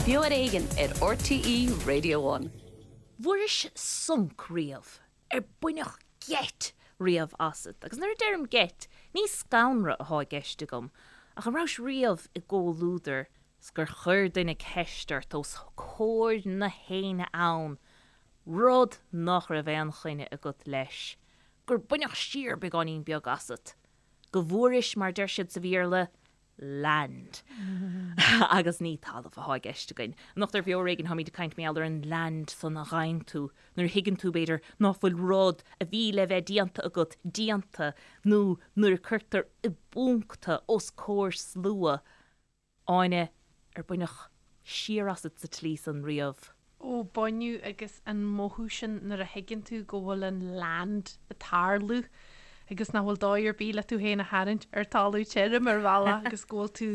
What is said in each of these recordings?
Beo ar Éigean ar RTÉ Radio One. Bhfuairis sonc riamh? Ar baineadh geit riamh asat? Agus nuair a deirim geit, ní scanradh athá i gceist agam, ach an rabhais riamh i gcomhluadar 's gur chuir duine ceist ort os comhair na héinne ann, rud nach raibh aon choinne agat leis, gur baineadh siar beagáinín beag asat, go bhfuairis, mar deir siad sa Bhéarla, land. Agus ní talamh athá i gceist againn. Anocht ar Bheo Ar Éigean táimid ag caint mar gheall ar an land san a ghaibheann tú nuair a thuigeann tú, b'fhéidir, ná fuil rud a bhí le bheith déanta agat déanta nó nuair a cuirtear i bponc tú os comhair slua. Áine, ar baineadh siar asat sa tslí san riamh? Ó, baineadh agus an mothú sin nuair a thuigeann tú go bhfuil an land ag tarlú agus nach bhfuil dóigh ar bith le tú féin a tharraingt ar talamh tirim ar bhealach agus go bhfuil tú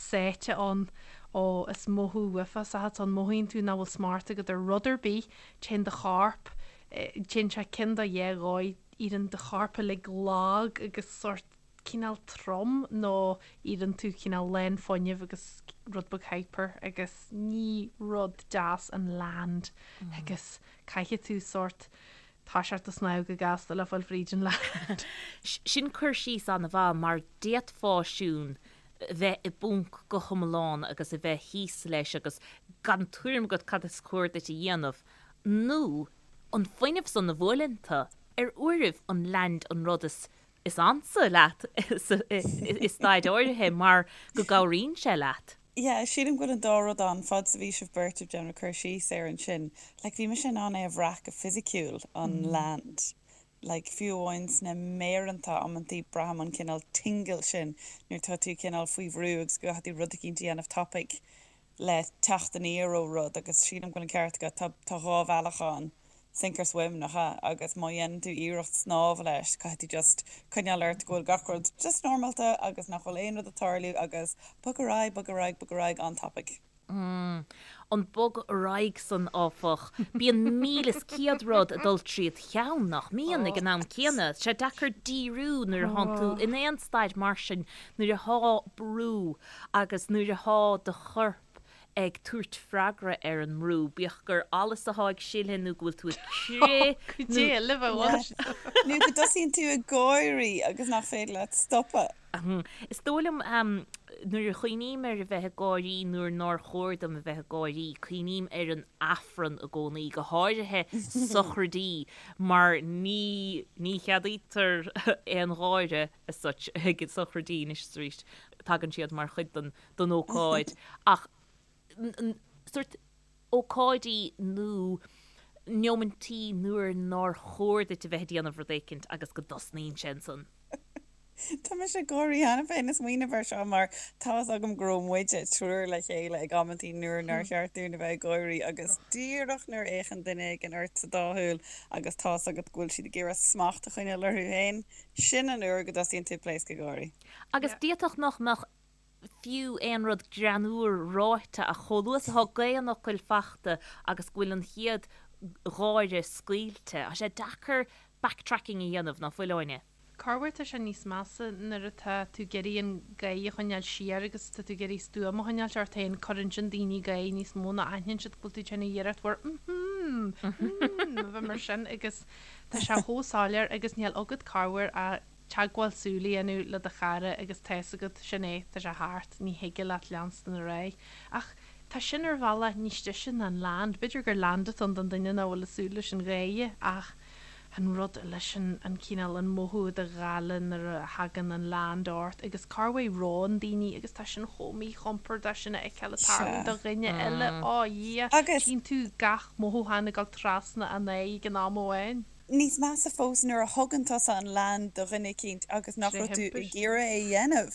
sáite ann. Ó, is mothú uafásach atá ann, mothaíonn tú nach bhfuil smacht agat ar rud ar bith, téann do chorp, téann sé ceann de dhá dhóigh, éiríonn do chorp uilig lag agus sórt cineál trom nó éiríonn tú cineál lán fuinnimh agus rud beag hyper agus ní rud deas an land agus caithfidh tú sórt toiseacht ag snámh go gasta le fáil fríd an land. Sin cur síos an-mhaith mar d'fhéadfá siún bheith i bponc go hiomlán agus a bheith thíos leis agus gan tuairim agat cad is cóir duit a dhéanamh nó an fuinneamh san a bhuaileann tú ar uairibh an land an rud is is ansa leat i staid áirithe mar go gcabhraíonn sé leat. Yeah, sílim go bhfuil an dá rud ann, fad is a bhí sibh beirt ag déanamh cur síos air ansin, like bhí mise in ann é a bhrath go fisiciúil, an land. Like fiú amháin sna méireanta amantaí braithim an cineál tingle sin nuair atá tú cineál faoi bhrú agus go gcaithfidh tú rud eicínt a dhéanamh tapaidh le teacht aniar ó rud agus sílim go bhfuil an ceart agat, tá tá dhá bhealach ann, sink or swim, nach ea? Agus má dhéanann tú iarracht snámh leis, caithfidh tú just coinneáil ort go bhfuil gach rud just normálta agus nach bhfuil aon rud ag tarlú agus bog ar aghaidh, bog ar aghaidh, bog ar aghaidh an-tapaidh. An bog ar aghaidh san, áfach, bíonn 1,100 rud ag dul tríd cheann, nach mbíonn, ag an am céanna. Tá sé deacair díriú nuair atánn tú in aon staid mar sin, nuair athá brú agus nuair athá do chorp ag tabhairt freagra ar an mbrú, bíodh gur allas athá ag sileadh nó go bhfuil tú ag crith nó. Nó go dtosaíonn tú ag gáirí agus nach féidir leat stopadh. Is dóigh liom, nuair a chuimhním ar a bheith ag gáirí nuair nár chóir dom a bheith ag gáirí, cuimhním ar an Aifreann i gcónaí, go háirithe sochraidí, mar ní ní cheadaítear aon gháire as such ag sochraidí anois is arís, tagann siad mar chuid den den ócáid ach sórt ócáidí nó neomaintí nuair nár chóir duit a bheith ag déanamh rud éicint agus go dtosnaíonn sé ansan. Tá mise ag gáirí cheana féin ag smaoineamh air seo mar tá's agam go raibh muide triúr le chéile ag amantaí nuair nár cheart dúinn a bheith ag gáirí agus díreach nuair a fhéachann duine éigin ort sa dá shúil agus tá's agat go bhfuil siad ag iarraidh smacht a choinneáil orthu féin, sin an uair go dtosaíonn tú ag pléascadh gáirí. Agus d'fhéadfadh nach mbeadh fiú aon rud greannmhar ráite ach chomh luath is atá gaoth an fhocail fachta agus go bhfuil an chéad gháire scaoilte, tá sé deacair backtracking a dhéanamh, ná fuil, Áine? Corruair tá sé níos measa nuair atá tú ag iarraidh an gáire a choinneáil siar agus tá tú ag iarraidh stuaim a choinneáilt ort féin, cuireann sin daoine ag gáire níos mó nó aithníonn siad go bhfuil tú ag déanamh iarracht mhór mm-hmm, mm, a bheith mar sin agus tá sé chomh soiléir agus níl agat corruair ach teagmháil súl a dhéanamh le do chara agus tá's agat, sin é, tá sé thart, ní thig leat leanstan ar aghaidh. Ach tá sin ar bhealach níos deise ná an land. B'fhéidir gur land atá ann don duine nach bhfuil ag súil leis an gháire ach an rud leis an, an cineál, an mothú i do ghála nuair a thagann an land ort agus corruair reonn daoine agus tá sin chomh míchompordach sin a fheiceáil ag tarlú do dhuine eile, á Dhia, tchíonn tú gach mothúchán ag dul trasna an aghaidh ag an am amháin. Níos measa fós nuair a thugann tusa an land do dhuine eicínt agus nach raibh tú ag iarraidh é a dhéanamh.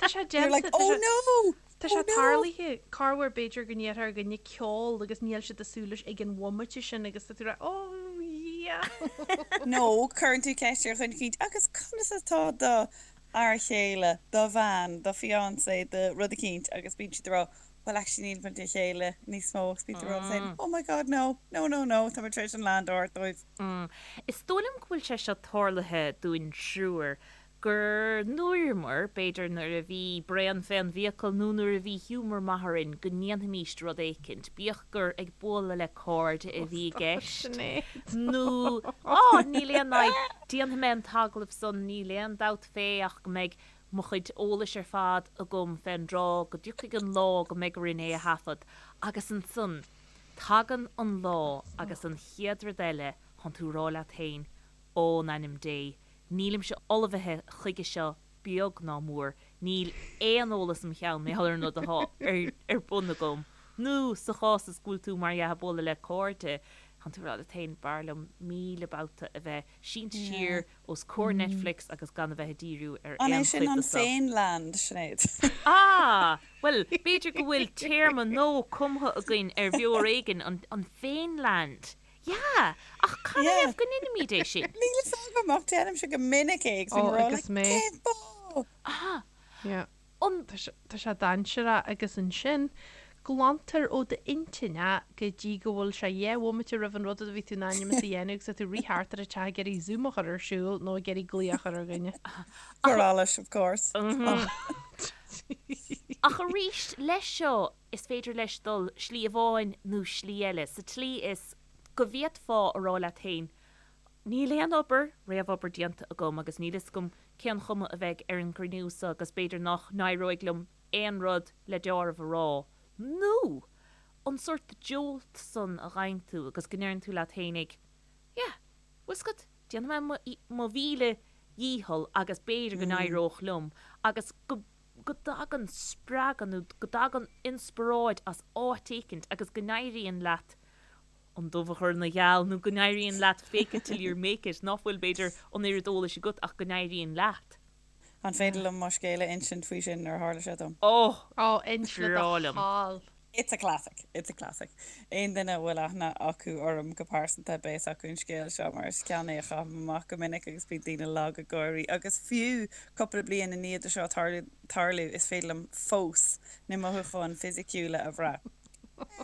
Tá sé You're like, déanta, oh no! Tá sé tarlaithe, corruair b'fhéidir go ndéarfá ar dhuine ceol agus níl siad ag súil leis ag an bhomaite sin agus tá tú ag rá oh yeah! Nó cuireann tú ceist ar dhuine eicínt agus conas atá do fhear chéile, do bhean, do fiancé, do rud eicínt agus bíonn siad ag rá Well actually níl muid le chéile níos mó agus bíonn tú ag rá saying oh my god no, no no no tá mé tar éis an land a thabhairt dóibh. Is dóigh liom go bhfuil sé seo tarlaithe dúinn triúr. Gur ndúramar, b'fhéidir nuair a bhí braon fén bhfiacail nó nuair a bhí giúmar maith orainn, go ndéanfaimíst rud éicint, bíodh gur ag bualadh le cairde a bhí i gceist, nó, á, níl aon fhadhb, déanfaidh mé an t-agallamh san, níl aon dabht fé ach go mbeidh mo chuid eolais ar fad agam fén dtráth go dtiocfaidh an lá go mbeidh orainn é a thaifead. Agus ansan, tagann an lá agus an chéad rud eile, thánn tú a rá leat féin, Ó, in ainm Dé, nílimse ullmhaithe chuige seo beag ná mór, níl aon eolas im cheann mar gheall ar an rud atá ar bun agam. Nó, sa chás is go bhfuil tú, mar dhea, ag bualadh le cairde, tánn tú ag rá leat féin, b'fhearr liom 1000 babhta a bheith sínte siar os comhair Netflix agus gan a bheith ag díriú ar An é aon sin chuid an de seo. féin-land, Sinéad? Ah! Bhuel, b'fhéidir go bhfuil téarma nua cumtha againn ar bhior éigin, an féin-land. Yeah! Ach cad ina thaobh go ndeinimid é sin? Níl fhios agam ach déanaimse go minic é agus bím Ó, ag rá agus like mé. cén fáth? Ah! Yeah. An. Tá sé, tá sé dainséarach agus ansin glantar ó d'intinn é go dtí go bhfuil sé 2 bhomaite roimh an rud a bhí tú in ainm is a dhéanamh agus tá tú ag rith thart ar an teach ag iarraidh Zoom a chur ar siúl nó ag iarraidh glaoch a chur ar dhuine. For allais, of course. Ach arís, leis seo, Is féidir leis dul slí amháin nó slí eile, sa tslí is go bhféadfá a rá leat féin, 'Níl aon obair, réamhobair déanta agam agus níl fhios agam cén chuma a bheidh ar an gcruinniú seo agus b'fhéidir nach n-éireoidh liom aon rud le deáramh a rá. Nó an sórt jolt san a fhaigheann tú agus go ndeireann tú leat féinig, 'Yeah, bhfuil 's agat, déanfaidh mé mo mhíle dhícheall agus b'fhéidir go n-éireodh liom agus go go dtagann spreagadh nó go dtagann inspioráid as áit éicint agus go n-éiríonn leat an dubh a chur ina gheal nó go n-éiríonn leat fake it till you make it, ná fuil, b'fhéidir, an oiread eolais agat ach go n-éiríonn leat. An féidir liom mo scéal a insint faoi sin nuair a tharla sé dom? Oh! Ó, inis le do Breá liom. thoil. It's a classic. It's a classic. Aon duine a bhfuil aithne acu orm go pearsanta, beidh fhios acu an scéal seo mar is ceann é a chaithim amach go minic agus bíonn daoine lag ag gáirí. Agus fiú cúpla bliain i ndiaidh do seo tarlú, is féidir liom fós na mothúcháin fisiciúla a bhrath.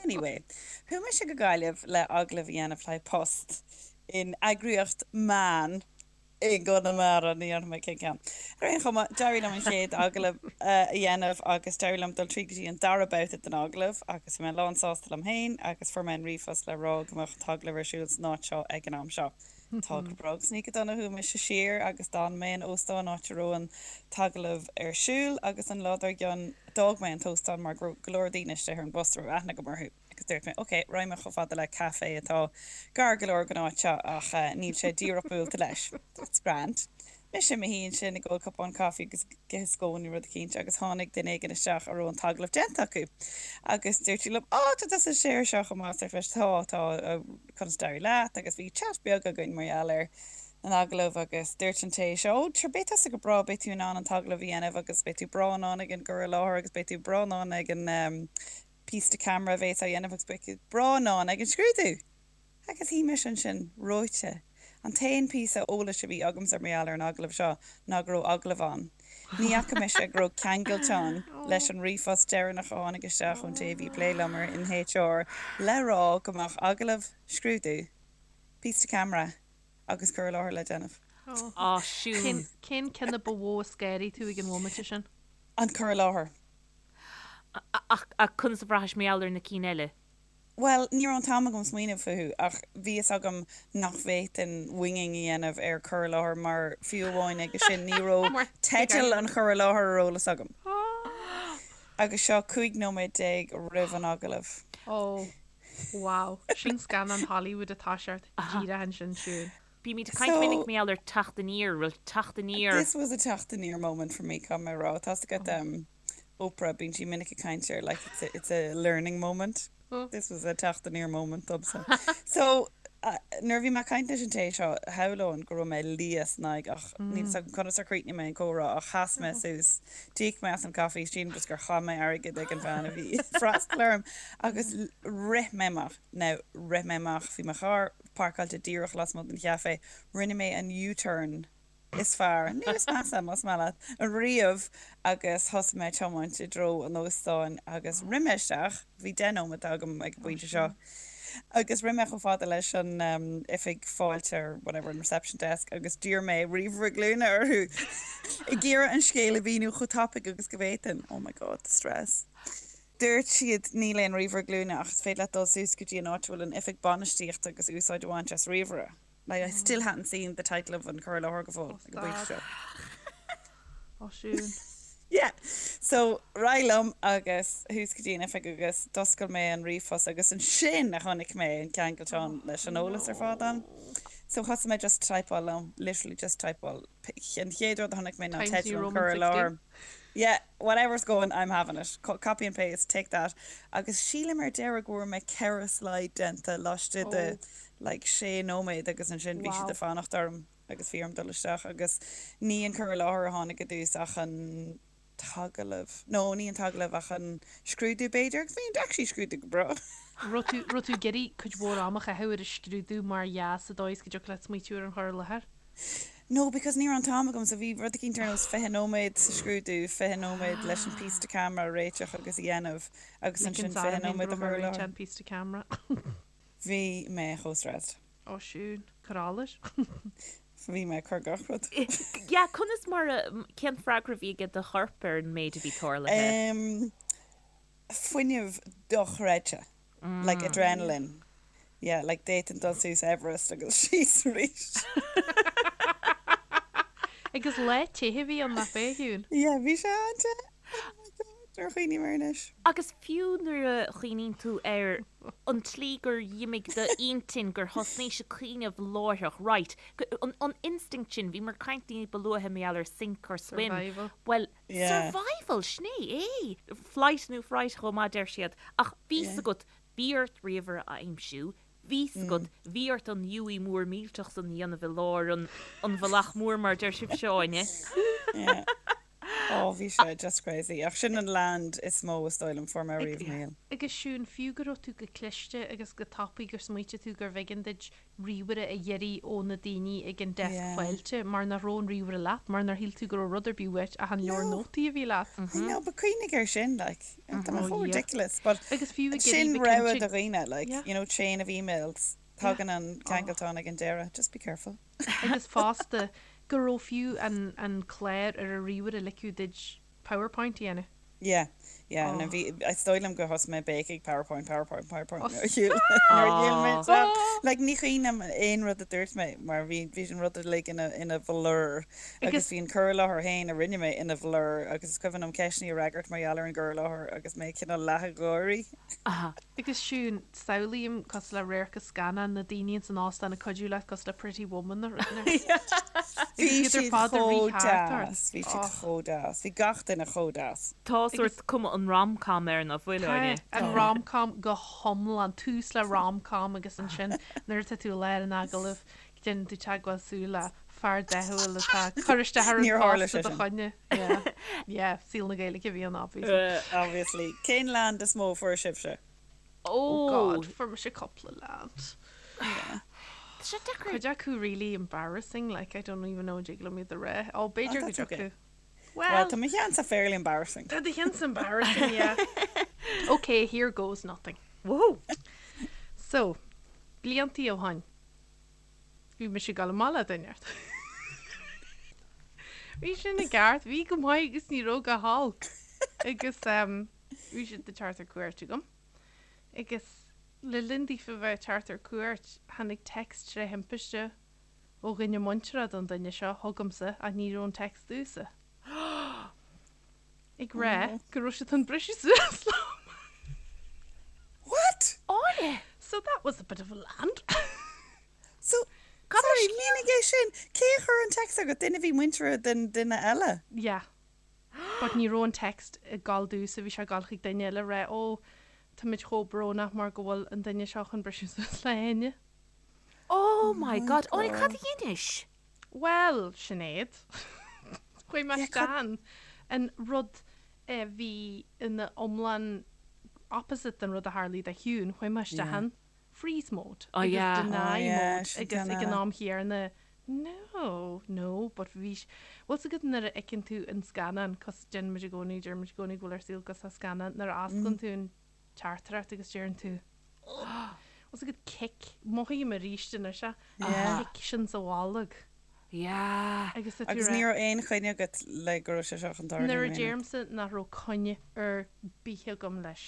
Anyway, chuaigh mise go Gaillimh le agallamh a dhéanamh le haghaidh post in eagraíocht meán. i gConamara, ní dhéarfaidh mé cén ceann. Ar aon chuma, d'éirigh liom an chéad agallamh a dhéanamh agus d'éirigh liom dul tríd go dtí an dara babhta den agallamh agus bhí mé lán sásta liom féin agus fuair mé an ríomhphost le rá go mbeadh an t-agallamh ar siúl san áit seo ag an am seo. Tá go breá agus ní go dona chuaigh mise siar agus d'fhan mé in óstán áit a raibh an t-agallamh ar siúl agus an lá dár gcionn d'fhág mé an t-óstán mar go raibh go leor daoine istigh ar an bhus a raibh aithne agam orthu. Agus dúirt mé, ok, raghaidh mé chomh fada le caife atá gar go leor don áit seo ach níl sé díreach buailte leis. That's grand. Mise i mo shuí ansin ag ól cupán caife agus ag ithe scón nó rud eicínt agus tháinig duine éigin isteach a raibh an t-agallamh déanta acu agus dúirt sí liom, Á, tá tusa istigh air seo chomh maith, arsa mise, Tá, tá, conas a d'éirigh leat? Agus bhí chat beag againn mar gheall ar an agallamh agus dúirt an té seo, Ó, sure, beidh tusa go breá, beidh tú in ann an t-agallamh a dhéanamh agus beidh tú breá in ann ag an gcur i láthair agus beidh tú breá in ann ag an píosa to camera a bhéas á dhéanamh agus beidh tú breá in ann ag an scrúdú! Agus shuigh mise ansin, reoite. An t-aon phíosa eolais a bhí agamsa mar gheall ar an agallamh seo ná go raibh agallamh ann. Ní fhaca mise go raibh ceangailteán leis an ríomhphost deireanach a tháinig isteach ón té a bhí ag plé liom in HR le rá go mbeadh agallamh, scrúdú, píosa to camera agus cur i láthair le déanamh. Á, Siún. Cén ceann a ba mhó a scanraigh tú ag an bhomaite sin? An cur i láthair. Ach conas a bhraithis mar gheall ar na cinn eile? Bhuel, ní raibh an t-am agam smaoineamh fúthu, ach bhí fhios agam nach bhféadfainn winging a dhéanamh ar cur i láthair mar fiú amháin aige sin ní raibh teideal an chur i láthair ar eolas agam. Agus seo 15 nóiméad roimh an agallamh. Ó, wow. Sin scannán Hollywood atá seort díreach ansin, Siún. Bímid ag caint minic mar gheall ar teacht aniar, bhuel teacht aniar. This was a teacht aniar moment for me, caithfidh mé a rá. Tá's agat Oprah, bíonn sí minic ag caint ar like it's a, it's a learning moment. This was a teacht aniar moment domsa. So, nuair a bhí mé ag caint leis an té seo, shamhlóinn go raibh mé liath san aghaidh ach níl fhios agam conas ar chríochnaigh mé an comhrá ach sheas mé suas, d'íoc mé as an caife, sílim just gur chaith mé airgead ag an bhean a bhí ag freastal orm agus rith mé amach. Now, rith mé amach, bhí mo charr páirceáilte díreach lasmuigh den chaife, rinne mé an U-turn is fearr, nó is measa, más maith leat, riamh agus thosaigh mé ag tiomáint i dtreo an óstáin agus rith mé isteach, bhí 10 nóiméad agam ag an bpointe seo. Agus rith mé chomh fada leis an oifig fáilte or whatever, an reception desk agus d'iarr mé ríomhaire glúine orthu ag iarraidh an scéal a mhíniú chomh tapaidh agus go bhféadfainn. Oh my God, the stress. Dúirt siad níl aon ríomhaire glúine ach is féidir leat dul suas go dtí an áit a bhfuil an oifig bainistíochta agus úsáid a bhaint as ríomhaire. Like I still hadn't seen the title of an cur i láthair go fóill ag an bpointe seo. Ó Siún. Yeah. So ar aghaidh liom agus thuas go dtí an oifig agus d'oscail mé an ríomhphost agus ansin a chonaic mé an ceangaltán leis an eolas ar fad ann. So thosaigh mé just typeáil liom, literally just typeáil. An chéad rud a chonaic mé ná Times New teideal an Roman cur i 16. láthair. Yeah, whatever's going, I'm having it. Copy and paste, take that. Agus sílim ar deireadh go bhfuair mé 4 slide déanta laistigh de like sé nóiméad agus ansin bhí siad ag fanacht orm agus bhí orm dul isteach agus ní an cur i láthair a tháinig i dtús ach an t-agallamh, no ní an t-agallamh ach an scrúdú b'fhéidir agus bhí an actually scrúdú go breá. Raibh tú, raibh tú ag iarraidh cuid mhór ama a chaitheamh ar an scrúdú mar dhea sa dóigh is go dtiocfadh leat smaoitiú ar an chur i láthair? No, because ní raibh an t-am agam, so bhí rud eicínt ar nós 20 nóiméad sa scrúdú, 20 nóiméad leis an píosa to camera a réiteach agus a dhéanamh agus Ligean ansin 20 orm féin go nóiméad a raibh mé chur i réiteach láthair. an píosa to camera. Bhí mé chomh stressed. Ó Siún, cuir Bhí mé ag cur gach rud. Yeah, conas mar a, cén freagra a bhí ag do chorp ar an méid a bhí tarlaithe? Em, fuinneamh dochreidte. Like adrenaline. Yeah, like d'fhéadfainn dul suas Everest agus síos arís. Agus lá te a bhí ann nach b'ea, a Shiún? Yeah, bhí sé an-te. Oh my God, nuair a chuimhním air anois. Agus fiú nuair a chuimhníonn tú ar an tslí gur dh'imigh d'intinn, gur thosnaís ag cuimhneamh láithreach, right, an instinct sin, bhíomar ag caint ní ba luaithe mar gheall ar sink or swim, Survival. bhuel, Yeah. Survival, sin é é! Flight nó fright chomh maith, deir siad. Ach bhí 's agat, bhí ort ríomhaire a aimsiú, bhí 's agat, bhí ort an U mór millteach san a dhéanamh i lár an an bhealach mór mar deir sibhse, Áine. Yeah. Oh, bhí sé just crazy. Ach sin an land is mó is dóigh liom fuair mé riamh i mo shaol. Agus Siún, fiú go raibh tú go cliste agus go tapaidh gur smaoitigh tú gurbh éigean duit ríomhaire a iarraidh ó na daoine ag an deasc fáilte mar nach raibh an ríomhaire leat, mar nár shíl tú go raibh rud ar bith uait ach an leabhar nótaí a bhí leat. I know, but cuimhnigh air sin, like, tá mé chomh ridiculous, but Agus fiú ag sin iarraidh rogha bheith do cinnte. dhaoine, like, Yeah. you know, chain of emails, tagann an ceangaltán ag an deireadh, just be careful. Agus fosta, go raibh fiú an an clár ar an ríomhaire a ligfeadh duit PowerPoint a dhéanamh. Yeah, yeah, nó bhí, is dóigh liom gur thosaigh mé ag béicigh PowerPoint, PowerPoint, PowerPoint nuair a shiúil, nuair a shiúil mé isteach. Like, ní cuimhin liom aon rud a dúirt mé mar bhí, bhí an rud uilig ina, ina bhlur agus bhí an cur i láthair féin a rinne mé ina bhlur agus is cuimhin liom ceisteanna a fhreagairt mar gheall ar an gcur i láthair agus mé cineál leath ag gáirí. Agus Siún, samhlaím cosúil le radharc as scannán, na daoine ins an óstán ag cuidiú leat cosúil le Pretty Woman nó rud éigin. Bhí Agus iad ar siad fad ag chomh rith thart ort. deas, bhí siad chomh deas, bhí gach duine chomh deas. Tá sórt cuma an rom-com air nach bhfuil, Tá, Áine? an rom-com go hiomlán, tús le rom-com agus ansin nuair atá tú i lár an agallaimh, déanann tú teagmháil súl le fear dathúil atá ag cur isteach ar an Níor tharla phost sé i do sin. choinne. Yeah, yeah, saol na Gaeilge a bhí ann obviously. Obviously. Cén land is mó a fuair sibhse? Oh God, fuair mise cúpla land. Yeah. Tá sé deacair. Cuid acu really embarrassing, like I don't even know an dtig liom iad a rá. Oh, b'fhéidir Oh, go that's okay. dtiocfadh. Well, Well, tá mo cheannsa fairly embarrassing. tá do cheannsa embarrassing, yeah. Okay, here goes nothing. Whoa! So, bliantaí ó shoin. Bhí mise ag dul amach le duine. Bhí sin i gceart, bhí go maith agus ní raibh go holc. Agus bhí siad ag teacht ar cuairt chugam. Agus le linn daofa bheith ag teacht ar cuairt, tháinig text tré thimpiste ó dhuine muinteartha don duine seo chugamsa ach ní raibh an text domhsa. Ag rá go raibh siad chun briseadh suas liom. What? Áine! So that was a bit of a land. So, sorry, mínigh é sin. Cé a chuir an text chugat? Duine a bhí muinteartha den duine eile? Yeah. But ní raibh an text ag gabháil domhsa, bhí sé ag gabháil chuig duine eile ag rá, oh, táimid chomh brónach mar go bhfuil an duine seo chun briseadh suas le hÁine. Oh my God, Áine, cad a dheinis? Bhuel, Sinéad, chuaigh mé isteach in an rud a bhí ina iomlán opposite den rud a tharlaigh do Shiún, chuaigh mé isteach in freeze mode agus deny mode agus ag an am chéanna no, no, but bhí, bhfuil 's agat nuair a fheiceann tú an scannán, cos déanann muid i gcónaí, deir muid i gcónaí go bhfuil ár saol cosúil le scannán, nuair a osclaíonn tú an teachtaireacht agus deireann tú. Is agat kick, mothaím arís anois é, an kick sin sa bholg. Yeah. Agus tá tú Agus rá. ní raibh aon choinne agat le go raibh sé seo chun tarlú Nuair a in aon deirimse nach raibh coinne ar bith agam leis.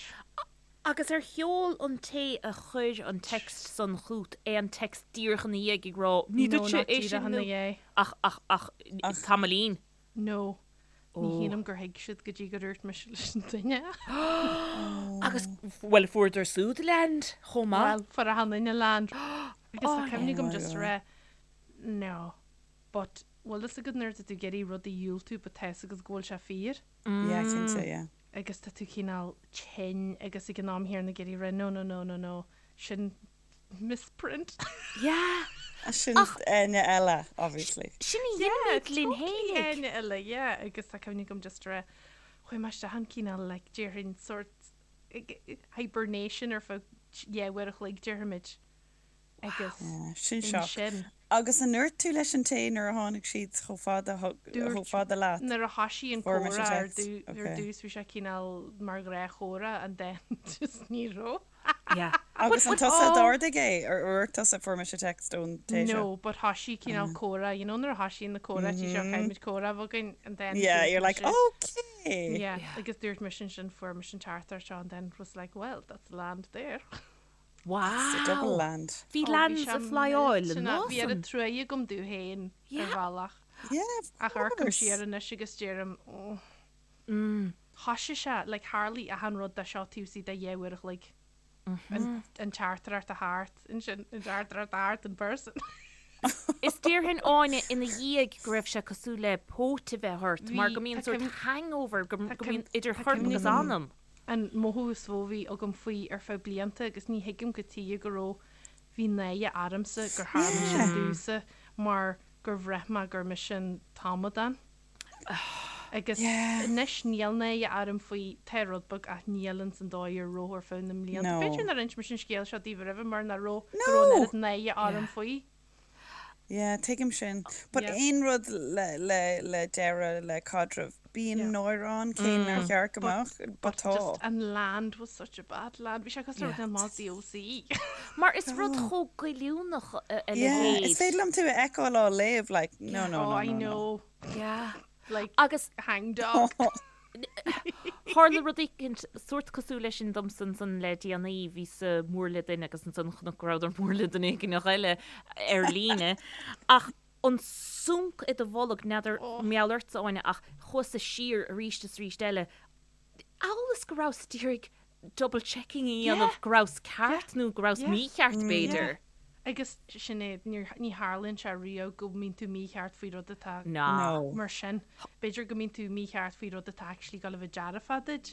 Agus ar sheol an té a chuir an text san chút aon text díreach ina dhiaidh ag rá ní No, duitse not é sin díreach ina nó dhiaidh. ach ach ach tamaillín. No. Ní shílim gur thuig siad go dtí gur dhúirt mise leis an duine. Agus, bhuel, fuaireadar súd land chomh maith. Bhuel, fuair achan duine land. Agus tá cuimhne agam just a rá, no, but bhfuil fhios agat nuair atá tú ag iarraidh rud a dhiúltú but tá fhios agat go bhfuil sé fíor? Yeah, cinnte, yeah. Agus tá tú cineál tinn agus ag an am chéanna ag iarraidh rá no, no, no, no, no, sin misprint. Yeah. Sin Áine eile, obviously. Sin a dhéanaimid linn Totally fhéinig. Áine eile, yeah. Agus tá cuimhne agam just a rá, chuaigh mé isteach in cineál like déarfainn sort hibernation ar feadh yeah uair a chloig déarfaimid. Agus Yeah, sin shock. ansin. Agus an ndúirt tú leis an té nuair a tháinig siad chomh fada chomh fada leat? Nuair a thoisigh an Fuair mise comhrá ar text. dtú- ar Okay. dtús bhí sé cineál mar ghnáthchomhrá and then just ní raibh. Yeah. Agus an tusa a d'ardaigh é? Ar dhúirt tusa fuair mise text ón té seo? No, but thoisigh cineál comhrá, you know nuair a thoisíonn na comhráití seo caithfimid comhrá a bheith againn and then Yeah, dúirt you're like, mise- okay. Yeah, agus dúirt mise ansin fuair mise an teachtaireacht seo and then was like, well, that's land there. Wow! It's a double land. Bhí Oh, bhí lands sé ag flyáil an millteanach. lá Bhí oiread san. truaighe agam domh féin ar Yeah. bhealach. Yeah, of Ach amharcaim course. siar anois agus deirim, oh. Thoisigh sé, like tharlaigh achan rud de seo taobh istigh de dheich uair a chloig. An an teachtaireacht a theacht, ansin an teachtaireacht a theacht in person. Is déarfainn Áine ina dhiaidh go raibh sé cosúil le póit a bheith ort mar Bhí, go mbíonn tá sórt cuimhne- hangover, go tá go mbíonn cuimhne- idir tá chorp cuimhne agus agam. anam. An mothú is mó a bhí agam faoi ar feadh blianta agus ní thuigim cad tuige go raibh, bhí náire ormsa gur tharla sin domhsa mar gur bhraith mé gur mise an t-amadán. Agus anois níl náire orm faoi, tá rud beag ach níl ins an dóigh a raibh ar feadh na mblianta. B'fhéidir nár inis mise an scéal seo daoibh roimhe mar nach raibh, go raibh an oiread náire orm faoi. Yeah, tuigim sin. But Yeah. aon rud le, le, le deireadh le caidreamh, bíonn Yeah. náire ann, cé nár cheart go But, mbeadh, but but tá. just an land was such a bad land. Bhí sé cosúil le Yeah. rud amach DOC. Mar is rud chomh goilliúnach a a Yeah, leithéid. is féidir liom tú a fheiceáil á léamh, like, no, no, Oh, no, I no, no. know. Yeah. Like, Agus hang dog. Tharla rud éicint sórt cosúil leis sin domsa ansan le déanaí, bhíos-sa mór le duine agus ansan chonac go rabhadar mór le duine éigineach eile ar líne. Ach an sunc i do bholg, n'fheadar mar gheall ortsa, Áine, ach chuas-sa siar arís is arís eile, amhail is go rabhas d'iarraidh double checking a dhéanamh go rabhas ceart nó go rabhas mícheart b'fhéidir. Agus sin é, ní tharlaíonn sé riamh go mbíonn tú mícheart faoi rud atá mar sin. B'fhéidir go mbíonn tú mícheart faoi rud atá actually ag dul a bheith dearfach duit.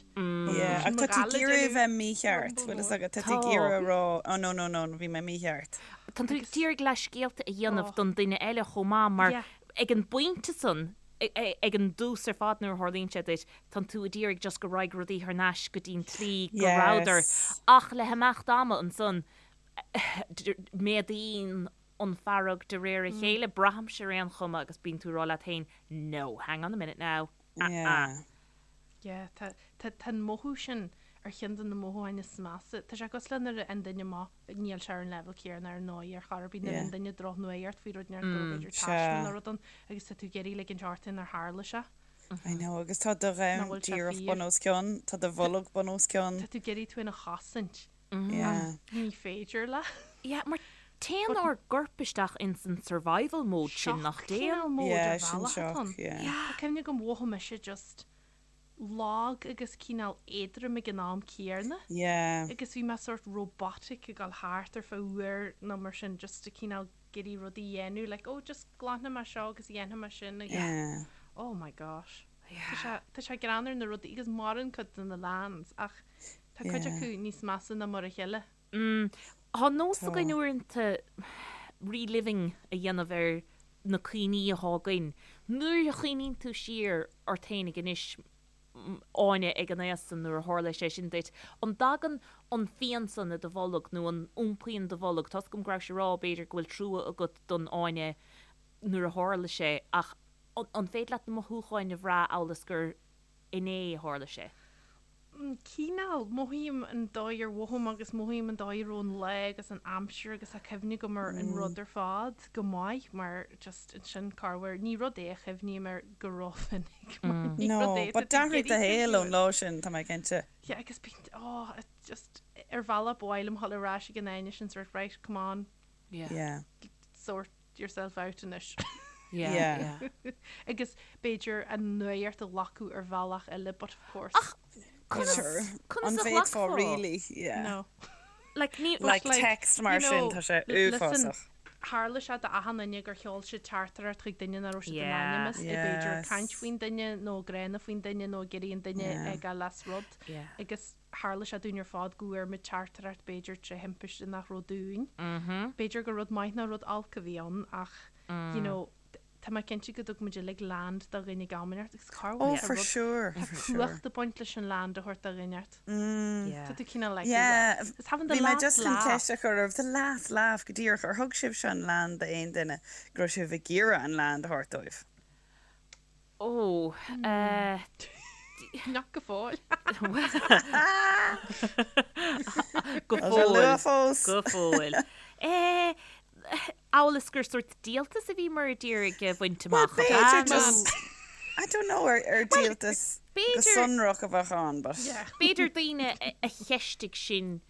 Yeah, ach tá tú ag iarraidh a bheith mícheart, bhfuil fhios agat, tá tú ag iarraidh a rá, oh no, no, no, bhí mé mícheart. Tá tú ag iarraidh leithscéalta a dhéanamh don duine eile chomh maith mar ag an bpointe san, ag an dtús ar fad nuair a tharlaíonn sé duit, tá tú ag iarraidh just go raghaidh rudaí thar n-ais go dtí'n tslí go rabhadar ach le himeacht ama ansan, méadaíonn an fearg de réir a chéile, braithimse ar aon chuma agus bíonn tú ag rá leat féin no, hang on a minute now, ah ah. Yeah, tá, tá, tá an mothú sin ar cheann de na mothúcháin is measa. Tá sé cosúil le nuair a fhaigheann duine maith, níl sé ar an leibhéal céanna ar ndóigh ar chor ar bith, nuair a fhaigheann duine drochnuaíocht faoi rud inteacht go raibh b'fhéidir taisme nó rud ann agus tá tú ag iarraidh ligint ort nár tharla sé. I know, agus tá do Nach dhomhan bhfuil sé díreach fíor. bun os cionn, tá do bholg bun os cionn. Tá tú ag iarraidh tú féin a chosaint. Yeah. Ní féidir leat. Yeah, mar téann ár gcorp isteach ins an survival mode sin, nach Shock dtéann? cineál mode Yeah, ar sin bhealach atá shock, ann. yeah. Tá cuimhne agam mhothaigh mise just lag agus cineál éadrom ag an am céanna. Yeah. Agus bhí mé sort robotic ag dul thart ar feadh uair nó mar sin just ag cineál ag iarraidh rudaí a dhéanamh like oh just glanfaidh mé seo agus dhéanfaidh mé sin agus Yeah. oh my gosh. Tá sé tá sé greannmhar na rudaí agus maireann cuid de na lands ach Tá cuid acu níos measa ná mar a chéile. Tá nós againn uaireanta reliving a dhéanamh ar na cuimhní atá againn. Nuair a chuimhníonn tú siar ort fhéinig anois, Áine, ag an aois san nuair a tharla sé sin duit, an dtagann an phian san i do bholg nó an iompaíonn do bholg? Tá's agam go rabhais ag rá b'fhéidir go bhfuil trua agat don Áine nuair a tharla sé ach an féidir leat na mothúcháin a bhrath amhail is gur inné a tharla sé? Cineál, mothaím an dóigh ar mhothaigh mé agus mothaím an dóigh a raibh an lá agus an aimsir agus tá cuimhne agam ar an rud ar fad go maith mar just ansin corruair, ní rud é a chuimhním air go rómhinic mar ní No, rud é but atá tú d'athraigh ag do iarraidh shaol cuimhniú ón air. lá sin, tá mé cinnte. Yeah, agus bíonn, oh, it just, ar bhealach ba mhaith liom dhul ar ais ag an Áine sin sort right, come on, Yeah. Yeah. sort yourself out anois. Yeah, Yeah. yeah. Agus b'fhéidir an nuacht a ghlacadh ar bhealach eile but of course. Ach conas, Sure. conas An a bhféadfá ghlacfá? really? Yeah. No. Like, ní, Like like, text mar you sin, know, tá sé listen, uafásach. Tharla sé d'achan duine gur sheol siad teachtaireacht chuig duine nach raibh siad in Yeah. ainm is é b'fhéidir ag Yes. caint faoin duine nó gránna faoin duine nó ag iarraidh an duine Yeah. a fhágáil as rud. Yeah. Agus tharla sé dúinn ar fad go bhfuair muid teachtaireacht b'fhéidir tré thimpiste nach raibh dúinn. B'fhéidir gur rud maith ná rud olc a bhí ann ach you know tá mé cinnte go dtug muid uilig land do dhuine ag am inteacht agus cá Oh, bhfuil for rud sure, tá for sure. cumhacht ag baint leis an land a thabhairt do dhuine inteacht. Yeah. Tá tú cineál like Yeah, it's having the bhí mé last just chun laugh. ceist a chur oraibh, the last laugh go díreach, ar thug sibhse an land d'aon duine go raibh sibh ag iarraidh an land a thabhairt dóibh? Ó, eh, Nach go fóill. Go Tá sé fóill. luath fós. Go fóill. Eh, amhail is gur sórt díoltas a bhíomar ag iarraidh a bhaint Well, amach. b'fhéidir Nó- just, I don't know, ar, ar díoltas go b'fhéidir- sonrach a bheadh ann, but. Yeah. B'fhéidir daoine a a cheistigh sinn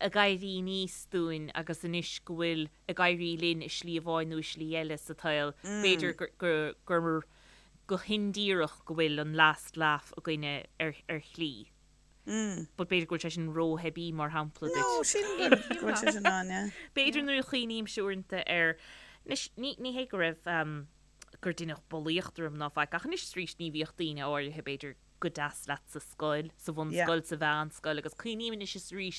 ag éirí aníos dúinn agus anois go bhfuil ag éirí linn i slí amháin nó i slí eile sa tsaol, b'fhéidir gur, gur, go hindíreach go bhfuil an last laugh againne ar, ar shlí. But b'fhéidir go bhfuil sé sin rótheibí mar shampla duit. No, sílim go bhfuil sé sin ann, yeah. B'fhéidir nuair a chuimhnímse uaireanta ar, anois ní, ní hé go raibh, gur deineadh bulaíocht orm ná faic ach anois is arís ní bhíodh daoine áirithe b'fhéidir go deas leat sa scoil, sa bhunscoil, sa mheánscoil agus cuimhním anois is arís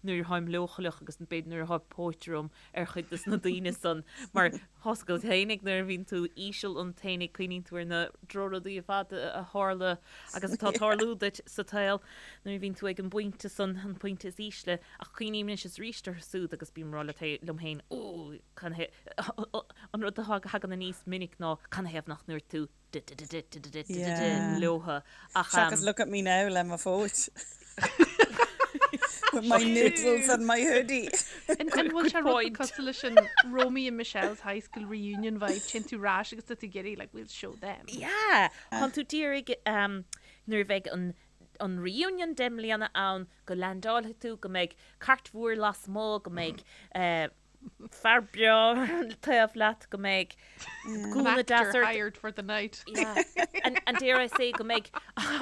nuair atáim leochaileach agus b'fhéidir nuair atá póit orm ar chuid de na daoine san mar tá's agat fhéinig nuair a bhíonn tú íseal ionat fhéinig cuimhníonn tú ar na drochrudaí ar fad a tharla agus atá ag tarlú duit sa tsaol nuair a bhíonn tú ag an bpointe san, an pointe is ísle ach cuimhním anois is arís orthu siúd agus bím ag rá liom féin, ó, an rud a thagann aníos minic ná canathaobh nach ndúirt tú leotha ach. Seachas look at me now le mo phóit. With my noodles and my hoodie. An bhfuil sé rud cosúil leis an Romy and Michelle's High School Reunion vibe, téann tú ar ais agus tá tú ag iarraidh like we'll show them. Yeah, tá tú d'iarraidh nuair a bheidh an an reunion 10 mbliana ann go leaindeálfaidh tú, go mbeidh cairt mhór lasmuigh, go mbeidh fear breá taobh leat go mbeidh gúna deas ort. hired for the night. Yeah. And, and dare I say go mbeidh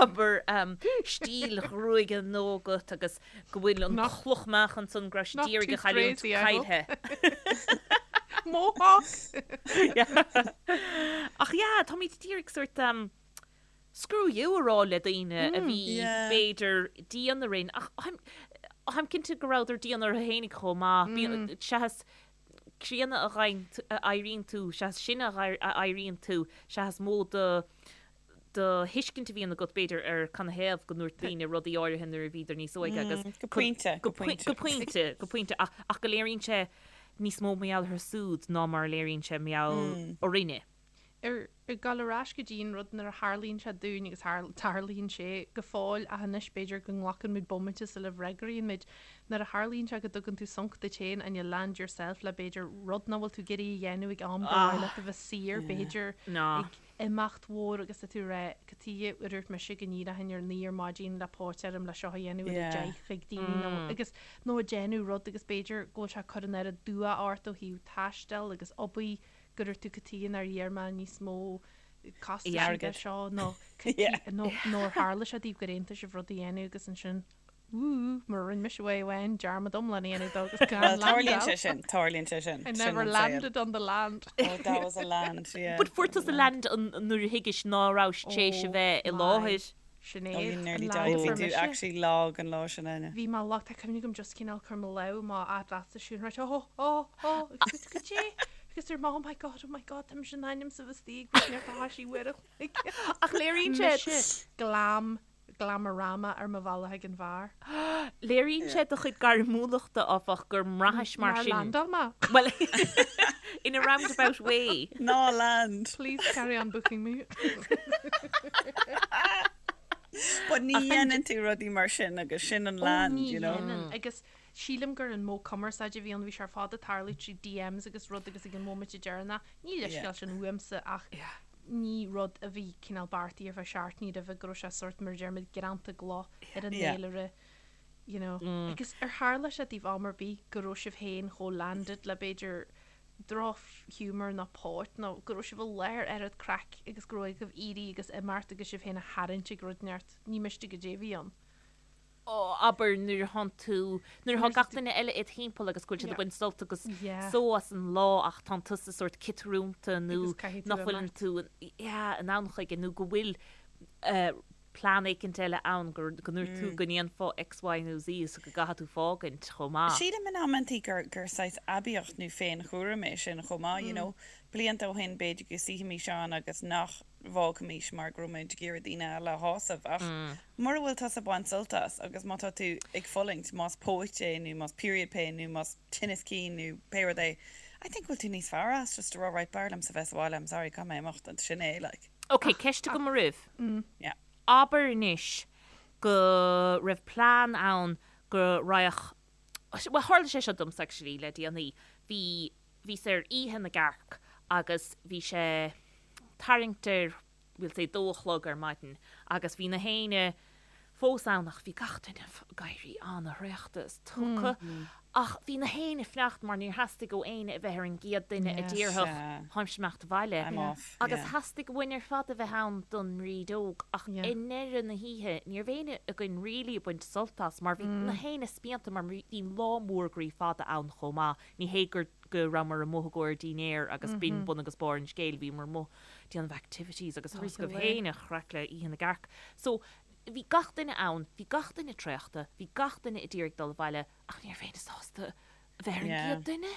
abair um, stíl ghruaige nua agat agus go bhfuil an chloch meáchain san go raibh siad d'iarraidh a chailliúint caillte. Mohawk! Ach yeah, táimid d'iarraidh sórt um, screw you a rá le daoine a bhí b'fhéidir dian orainn ach táim cinnte go rabhadar dian orthu fhéinig chomh maith. Seachas críonna a éiríonn tú, seachas sine a éiríonn tú, seachas mó do do thuiscint a bhíonn agat b'fhéidir ar canathaobh go ndúirt daoine rudaí áirithe nuair a bhíodar níos óige agus Go pointe, go pointe, go pointe, go pointe ach go léiríonn sé níos mó mar gheall orthu siúd ná mar a léiríonn sé mar gheall orainne. Ar ag dul ar ais go dtí an rud nuair a tharlaíonn sé dúinn agus tarlaíonn sé go fóill ach anois b'fhéidir go nglacann muid bomaite sula bhfreagraíonn muid, nuair a tharlaíonn sé go dtugann tú sonc duit féin and you land yourself le b'fhéidir rud nach bhfuil tú ag iarraidh a dhéanamh ag am gur mhaith leat a bheith saor b'fhéidir ag imeacht mhór agus tá tú ag rá cad chuige ar dhúirt mise go n-éireochainn ar 9 ar maidin le póit orm le seo a dhéanamh ar a 10 chuig daoine nó agus nó ag déanamh rud agus b'fhéidir go bhfuil sé ag cur an oiread dua ort ó thaobh taistil agus obair go ndúirt tú cad chuige nár iarr mé níos mó costais airgid seo nó nó nó ar tharla sé daoibh gur aontaigh sibh rud a dhéanamh agus ansin wú mar a rinne mise uair amháin dearmad iomlán a dhéanamh dó agus gan Well, tarlaíonn sé landáil. sin, tarlaíonn sé sin. I Sin never an saol. landed on the land. Oh, that was a land, yeah. But fuair tusa land an nuair a thuigis ná rabhais tréis a Oh bheith i my. láthair. Sinéad, Oh, you an nearly land died. a Bhí fuair tú mise. actually lag an lá sin, Áine. Bhí mé lag, tá cuimhne agam just cineál cur mo lámh i mo leatsa siúd right, oh, oh, oh, agus go dté, agus dúirt mé, oh my god, oh my god, tá mise in ainm is a bheith istigh ag neart a thaisí uair a chloig. Ach léiríonn sé. Mise glam, glamorama ar mo bhealach ag an bheár. Léiríonn sé do chuid gairmiúlachta, áfach, gur mbraithis mar Nár sin. landáil mé. Well, in a roundabout way. Ná land. Please carry on booking me. But ní dhéanann tú rudaí mar sin agus sin an land, you know. Ó ní dhéanann. Agus sílim gur an modh cumarsáide a bhí ann, bhí sé ar fad ag tarlú trí DMs agus rud agus ag an móimint deireanach, ní leithscéal sin uaimse ach ní rud a bhí cineál beartaithe ar feadh seachtainí roimhe go raibh sé sórt mar a deirimid greanta i gcloch ar an fhéilire, you know. Agus ar tharla sé daoibh am ar bith go raibh sibh féin chomh landed le b'fhéidir drochghiúmar nó póit nó go raibh sibh i láthair oiread craic agus go raibh agaibh éirí agus imeacht agus sibh féin a tharraingt ag rud inteacht, ní miste goidé a bhí ann. Ó, abair nuair atánn tú, nuair atá gach duine eile id thimpeall agus go bhfuil siad ag baint sult agus só as an lá ach tánn tusa sórt ciotrúnta nó nach bhfuileann tú, yeah, in ann chuige nó go bhfuil plean éicint eile ann go ndúirt tú go ndéanfá X, Y nó Z so go gcaithfidh tú fágaint chomh maith. Sílim in amantaí gur gur saghas aibíocht nó féinchúram é sin chomh maith, you know. Blianta ó shin b'fhéidir go suífimis ann agus nach bhfágfaimis mar go raibh muid ag iarraidh daoine eile a shásamh ach mura bhfuil tusa ag baint sult as agus má tá tú ag fulaingt, más póit é nó más period pain nó más tinneas cinn nó pé rud é, I think go bhfuil tú níos fearr as just a rá right b'fhearr liomsa bheith sa bhaile, I'm sorry, caithfidh mé imeacht and sin é like. Ok, ceist agam oraibh. Abair anois go raibh plean ann go raghadh, bhuel tharla sé seo domsa actually le déanaí, bhí, bhíos ar Oíche na gCearc agus bhí sé tarraingt ar, we'll say dó a chlog ar maidin agus bhí na héinne fós ann ach bhí gach duine ag éirí an-thraochta is tugtha ach bhí na héinne ag fanacht mar níor theastaigh ó éinne a bheith ar an gcéad duine a déarfadh táimse ag imeacht abhaile agus theastaigh uainn ar fad a bheith ann don mbrídeog ach i ndeireadh na hoíche ní raibh éinne againn really ag baint sult as mar bhí na héinne spíonta mar bhí lá mór groí fada ann chomh maith ní hé gur go rabhamar amuigh i gcomhair dinnéar agus b'in bun agus barr an scéil bhíomar amuigh déanamh activities agus tá a fhios agaibh féin an chraic le Oíche na gCearc. So, bhí gach duine ann, bhí gach duine traochta, bhí gach duine a d'iarraidh dul abhaile ach ní raibh éinne sásta a bheith ar an gcéad duine.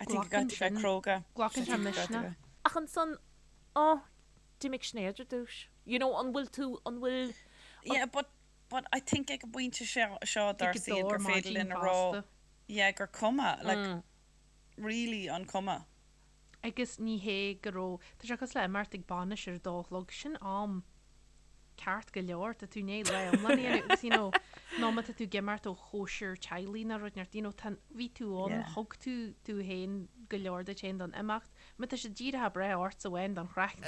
I think you got to bheith cróga. Glacann sé misneach. Ach ansan, oh, d'imigh Sinéad ar dtús. You know, an bhfuil tú, an bhfuil. Yeah, but, but I think ag an bpointe seo, seo dár saol gur féidir linn a rá, yeah, gur cuma, like, really an cuma. Agus ní hé go raibh, tá sé cosúil le imeacht ag bainis ar a dó a chlog, sin am ceart go leor, tá tú i ndiaidh lá iomlán a dhéanamh agus you know, nó má tá tú ag imeacht ó chóisir teaghlaigh nó rud inteacht, you know, tá, bhí tú ann, thug tú tú féin go leor duit féin don imeacht, má tá sé díreach ag breith ortsa amháin don chraic,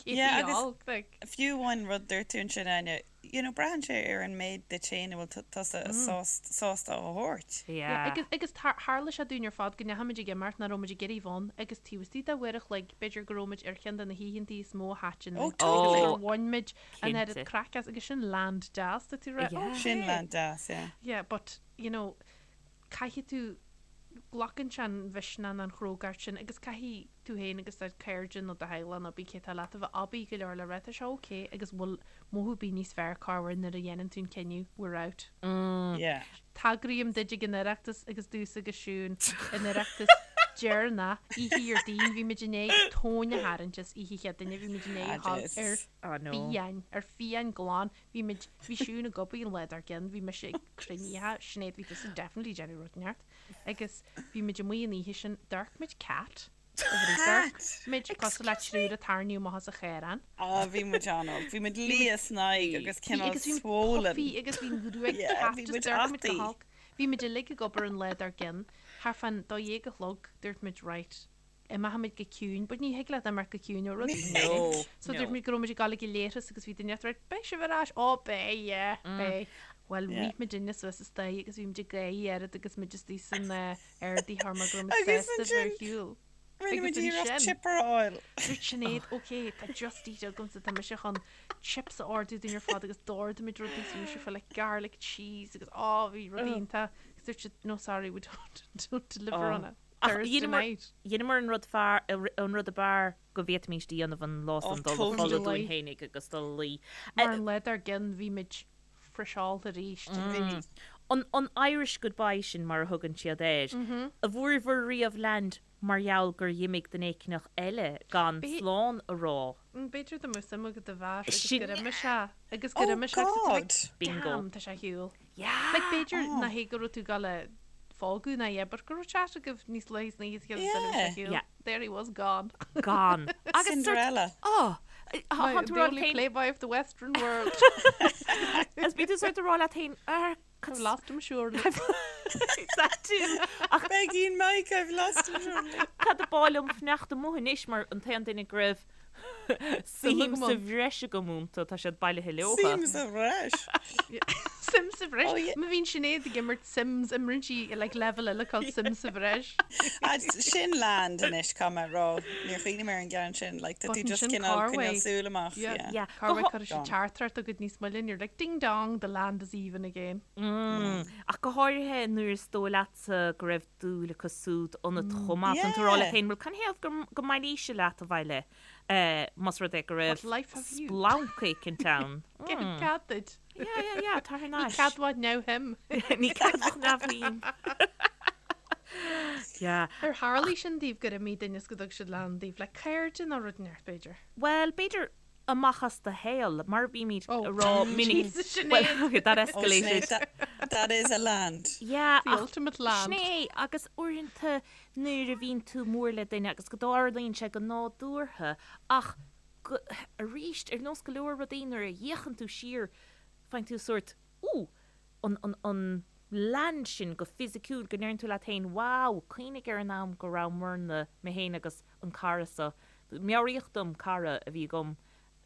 Yeah, agus fiú amháin rud dúirt tú ansin, Áine, you know, braitheann sé ar an méid duit féin a bhfuil tusa sásta a thabhairt. Yeah. Agus, agus tharla sé dúinn ar fad go ndeachaigh muid ag imeacht nach raibh muid ag iarraidh bheith ann agus taobh istigh de uair a chloig, b'fhéidir go raibh muid ar cheann de na hoícheantaí is mó a thaitin Oh, totally. gur bhain muid an oiread craic as agus sin land deas, tá tú ag rá, Yeah. okay. Sin land deas, yeah. Yeah, but, you know, caithfidh tú, glacann sé an mhisneach nó an chrógacht sin agus caithfidh tú féin agus do chairde nó do theaghlach nó pé cé atá leat a bheith aibí go leor le rá tá sé ok agus bhfuil mothú ar bith níos fearr corruair nuair a dhéanann tú an cinneadh we're out. Yeah. Tagraím duid ag an Oireachtas agus domhsa agus Siún an Oireachtas deireanach, oíche Dhéardaoin, bhí muid i ndiaidh tóin a tharraingt as oíche Chéadaoine, bhí muid i ndiaidh a dhul ar fiáin, ar fiáin glan, Bhí muid, bhí Siún ag obair an lá dár gcionn, bhí mise ag cruinnithe, Sinéad, bhí tusa definitely ag déanamh rud inteacht, agus bhí muid amuigh an oíche sin, d'amharc muid cat, d'amharc muid cosúil le triúr a tarraingíodh amach as an chaorán. Á, bhí muid an-olc, bhí muid liath san aghaidh agus cineál Agus bhí muid swollen. puffy agus bhí an ghruaig Yeah, cat, bhí just muid d'amharc muid go ataí. holc. Bhí muid uilig ag obair an lá dár gcionn, thart fán dó dhéag a chlog, dúirt muid right, imeochaimid go ciúin, but ní thig leat imeacht go ciúin ó rudaí. No, So no. dúirt muid go raibh muid ag dul ag an leithreas agus bhí duine ag rá, beidh sibh ar ais, ó beidh, yeah, beidh. Bhuel, Yeah. rith muidinne suas an staighre agus bhí muid ag gáire oiread agus muid istigh san ardaitheoir mar go raibh muid Agus sásta bheith ar ansin- shiúl. Rinne muid Agus iarracht ansin- chipper a fháil. Dúirt Sinéad, ok, tá Just Eat agamsa, tá mise chun chips a ordú dúinn ar fad agus d'ordaigh muid rudaí so bhí sé full like garlic cheese agus á bhí rudaí iontach. Agus dúirt siad, no sorry, we don't, don't deliver Oh. on a Ach Thursday dheineamar, night. dheineamar an rud fearr, an rud ab fhearr go bhféadfaimís a dhéanamh an lá Oh, san, dul a totally. chodladh dúinn fhéinig agus dul a luí. Mar an lá dár gcionn bhí muid friseálta arís. Bhí. An, an Irish goodbye sin mar a thugann siad air, an bhfuaireabhair riamh land mar gheall gur dh'imigh duine éicneach eile gan B'é- slán a rá? B'fhéidir dá mbeadh suim agat i bhfear agus Sin- gur imigh sé agus gur Oh imigh sé agus tá tú like, God! Bingo. Damn, tá sé ar shiúl. Yeah! Like b'fhéidir nach hé go raibh tú ag dul a fágadh ná yeah, but go raibh chat agaibh níos luaithe san oíche is Yeah. ar shiúl. Yeah. There he was gone. Gone. Agus sort Cinderella. oh! The only playboy of the western world. Is bíonn tú sort ag rá leat féin, "Ar, I've lost him surely. That too. Ach Begging Mike, I've lost him surely. Cad ab áil liom fanacht amuigh anois mar an t-aon duine go raibh suim sa bhreis agam iontu, tá siad bailithe leotha. Suim sa bhreis. Suim sa bhreis. Oh, yeah. Má bhíonn Sinéad ag imirt Sims, imríonn sí like level eile called Suim sa bhreis. Ah, sin land anois, caithfidh mé a rá. Níor chuimhnigh mé ar an gceann sin. Like, tá tú But just ansin cineál Carway. coinneáil súil amach. Yeah. Yeah. Yeah. Cá Go bhfuil cuirfidh siad Gone. teachtaireacht agat níos moille and you're like ding dong, the land is even again. Mm. Ach go háirithe nuair is dóigh leatsa go raibh dúil acu súd ionat chomh maith. Tá tú ag rá leat Yeah. féin, bhuel canathaobh go, go mbailíse leat abhaile eh, más rud é go raibh What life have you? splanc éicint ann. Cén cead duit? Yeah, yeah, yeah, tar thar Ní n-ais. ceadmhach neamhshuim. Ní ceadmhach neamhshuim. Yeah. Ar tharlaigh sin daoibh gur imigh duine is go dtug siad land daoibh le cairde nó rud inteacht b'fhéidir? Bhuel, b'fhéidir amach as do shaol, mar a bímid Oh, a rá minic. Jesus, Sinéad. Well, okay, that Oh, escalated. Sinéad, that, that is a land. Yeah, The ach ultimate land. sin é, agus uaireanta nuair a bhíonn tú mór le duine agus go dtarlaíonn sé go nádúrtha, ach go, arís, ar nós go leor rudaí nuair a fhéachann tú siar, faigheann tú sórt, ooh, an, an, an land sin go fisiciúil, go ndeireann tú leat féin, wow, cuimhnigh ar an am go rabhamarna, mé féin agus an cara seo, Meabhraíodh dom cara a bhí agam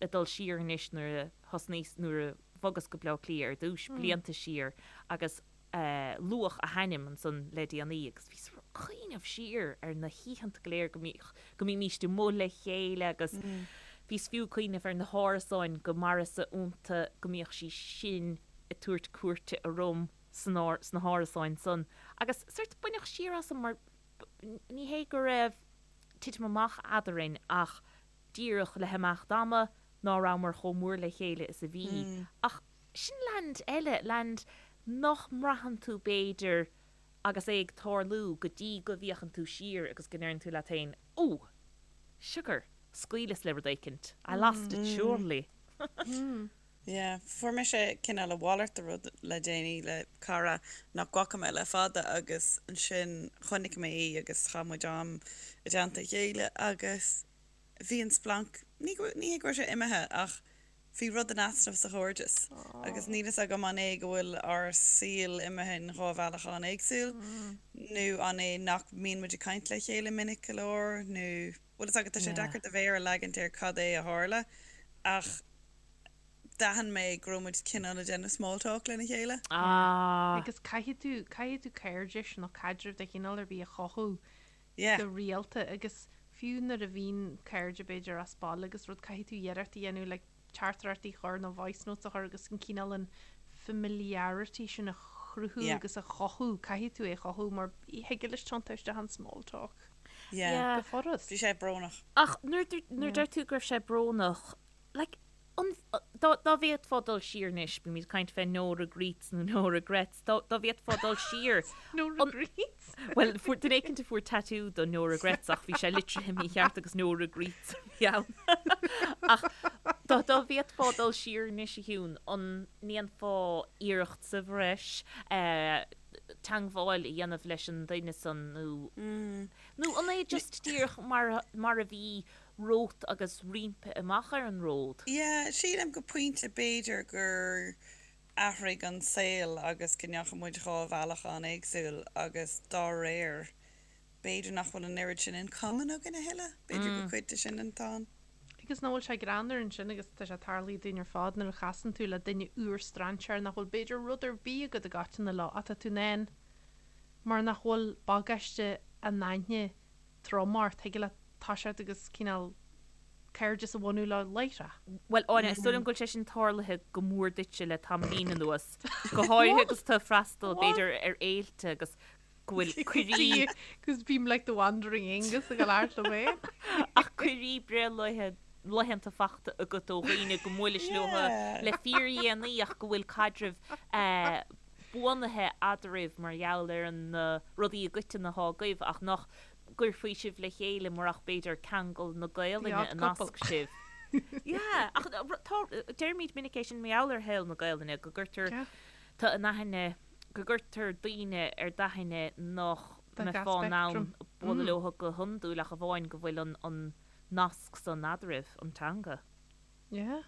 ag dul siar anois nuair a thosnaíos, nuair a bhogas go Bleá Cliath ar dtús, blianta siar, agus luadh a hainm ansan le déanaí agus bhíos ag cuimhneamh siar ar na hoícheanta go léir go mbíodh, go mbímíst amuigh le chéile agus bhíos fiú ag cuimhneamh ar na hárasáin go maireas-sa iontu go mbíodh sí sin ag tabhairt cuairte orm san, sna hárasáin san agus sort baineadh siar asam mar ní hé go raibh titim amach eadarainn ach díreach le himeacht ama ná rabhamar chomh mór le chéile is a bhí. Ach sin land eile, land nach mbraitheann tú b'fhéidir agus é ag tarlú go dtí go bhféachann tú siar agus go ndeireann tú leat féin, Ó! Sugar! Scaoileas le rud éicint. I lost it surely. Yeah, fuair mise cineál a mhalairt de rud le déanaí le cara nach bhfaca mé le fada agus ansin chonaic mé í agus chaith muid am i dteannta a chéile agus bhí an splanc, ní ní hé go raibh sé imithe ach bhí rud in easnamh sa chairdeas agus níl fhios agam an é go bhfuil ár saol imithe in dhá bhealach an-éagsúil nó an é nach mbíonn muid ag caint le chéile minic go leor nó bhfuil fhios agat tá sé deacair do mhéar a leagaint ar cad é a tharla ach d'aithin mé go raibh muid cineál ag déanamh small talk lena chéile. Ah. Agus caithfidh tú, caithfidh tú cairdis nó caidreamh de chineál ar bith a chothú Yeah. go rialta agus fiú nuair a bhíonn cairde b'fhéidir as baile agus rud caithfidh tú iarracht a dhéanamh like teachtaireachtaí a chur nó voice notes a chur agus an cineál an familiarity sin a chruthú Yeah. agus a chothú, caithfidh tú é a chothú mar thig leis tiontú isteach in small talk Yeah. Yeah. go furast. Bhí sé brónach. Ach nuair nuair deir tú go raibh sé brónach, like, an, dá, dá bhféadfá dul siar anois, bímid ag caint fé no regrets nó no regrets, dá, dá bhféadfá dul siar, No an, regrets? bhuel, fuair, duine éicint a fuair tattoo do no regrets ach bhí sé litrithe mícheart agus no regreets a bhí ann. Ach dá, dá bhféadfá dul siar anois a Shiún, an ndéanfá iarracht sa bhreis, eh, teangmháil a dhéanamh leis an duine san nó, nó an é just díreach mar, mar a bhí romhat agus roimpi amach ar an ród. Yeah, sílim go pointe b'fhéidir gur athraigh an saol agus go ndeachaigh muid dhá bhealach an-éagsúil agus dá réir b'fhéidir nach bhfuil an oiread sin in common againn a thuilleadh, b'fhéidir gur cuid de sin atá ann. Agus nach bhfuil sé greannmhar ansin agus tá sé tarlaithe dúinn ar fad nuair a chasann tú le duine úr strainséir nach bhfuil b'fhéidir rud ar bith agat i gcoiteann leo ach tá tú in ann mar nach bhfuil bagáiste an aithne trom ort, thig leat toiseacht agus cineál cairdeas a bhunú leo láithreach. Bhuel, Áine, is dóigh liom go bhfuil sé sin tarlaithe go mór duitse le tamaillín anuas, go háirithe agus tú ag freastal, b'fhéidir, ar fhéilte agus go bhfuil cuirí. Cos bím like the wandering Aengus ag labhairt liom féin. Ach cuirí breithlaethe, laethanta fachta agat ó dhaoine go mbuailis leo le fíordhéanaí ach go bhfuil caidreamh buanaithe eadraibh mar gheall ar na rudaí i gcoiteann atá agaibh ach nach gcuirfí sibh le chéile murach b'fhéidir ceangal na Gaelainne a nasc sibh. Yeah, ach tá, deirimid minic é sin mar gheall ar shaol na Gaelainne, go gcuirtear, tá in aithne, go gcuirtear daoine ar d'aithne nach mbeifeá in ann bualadh leo go hiondúil ach amháin go bhfuil an nasc san eadraibh, an teanga. Yeah.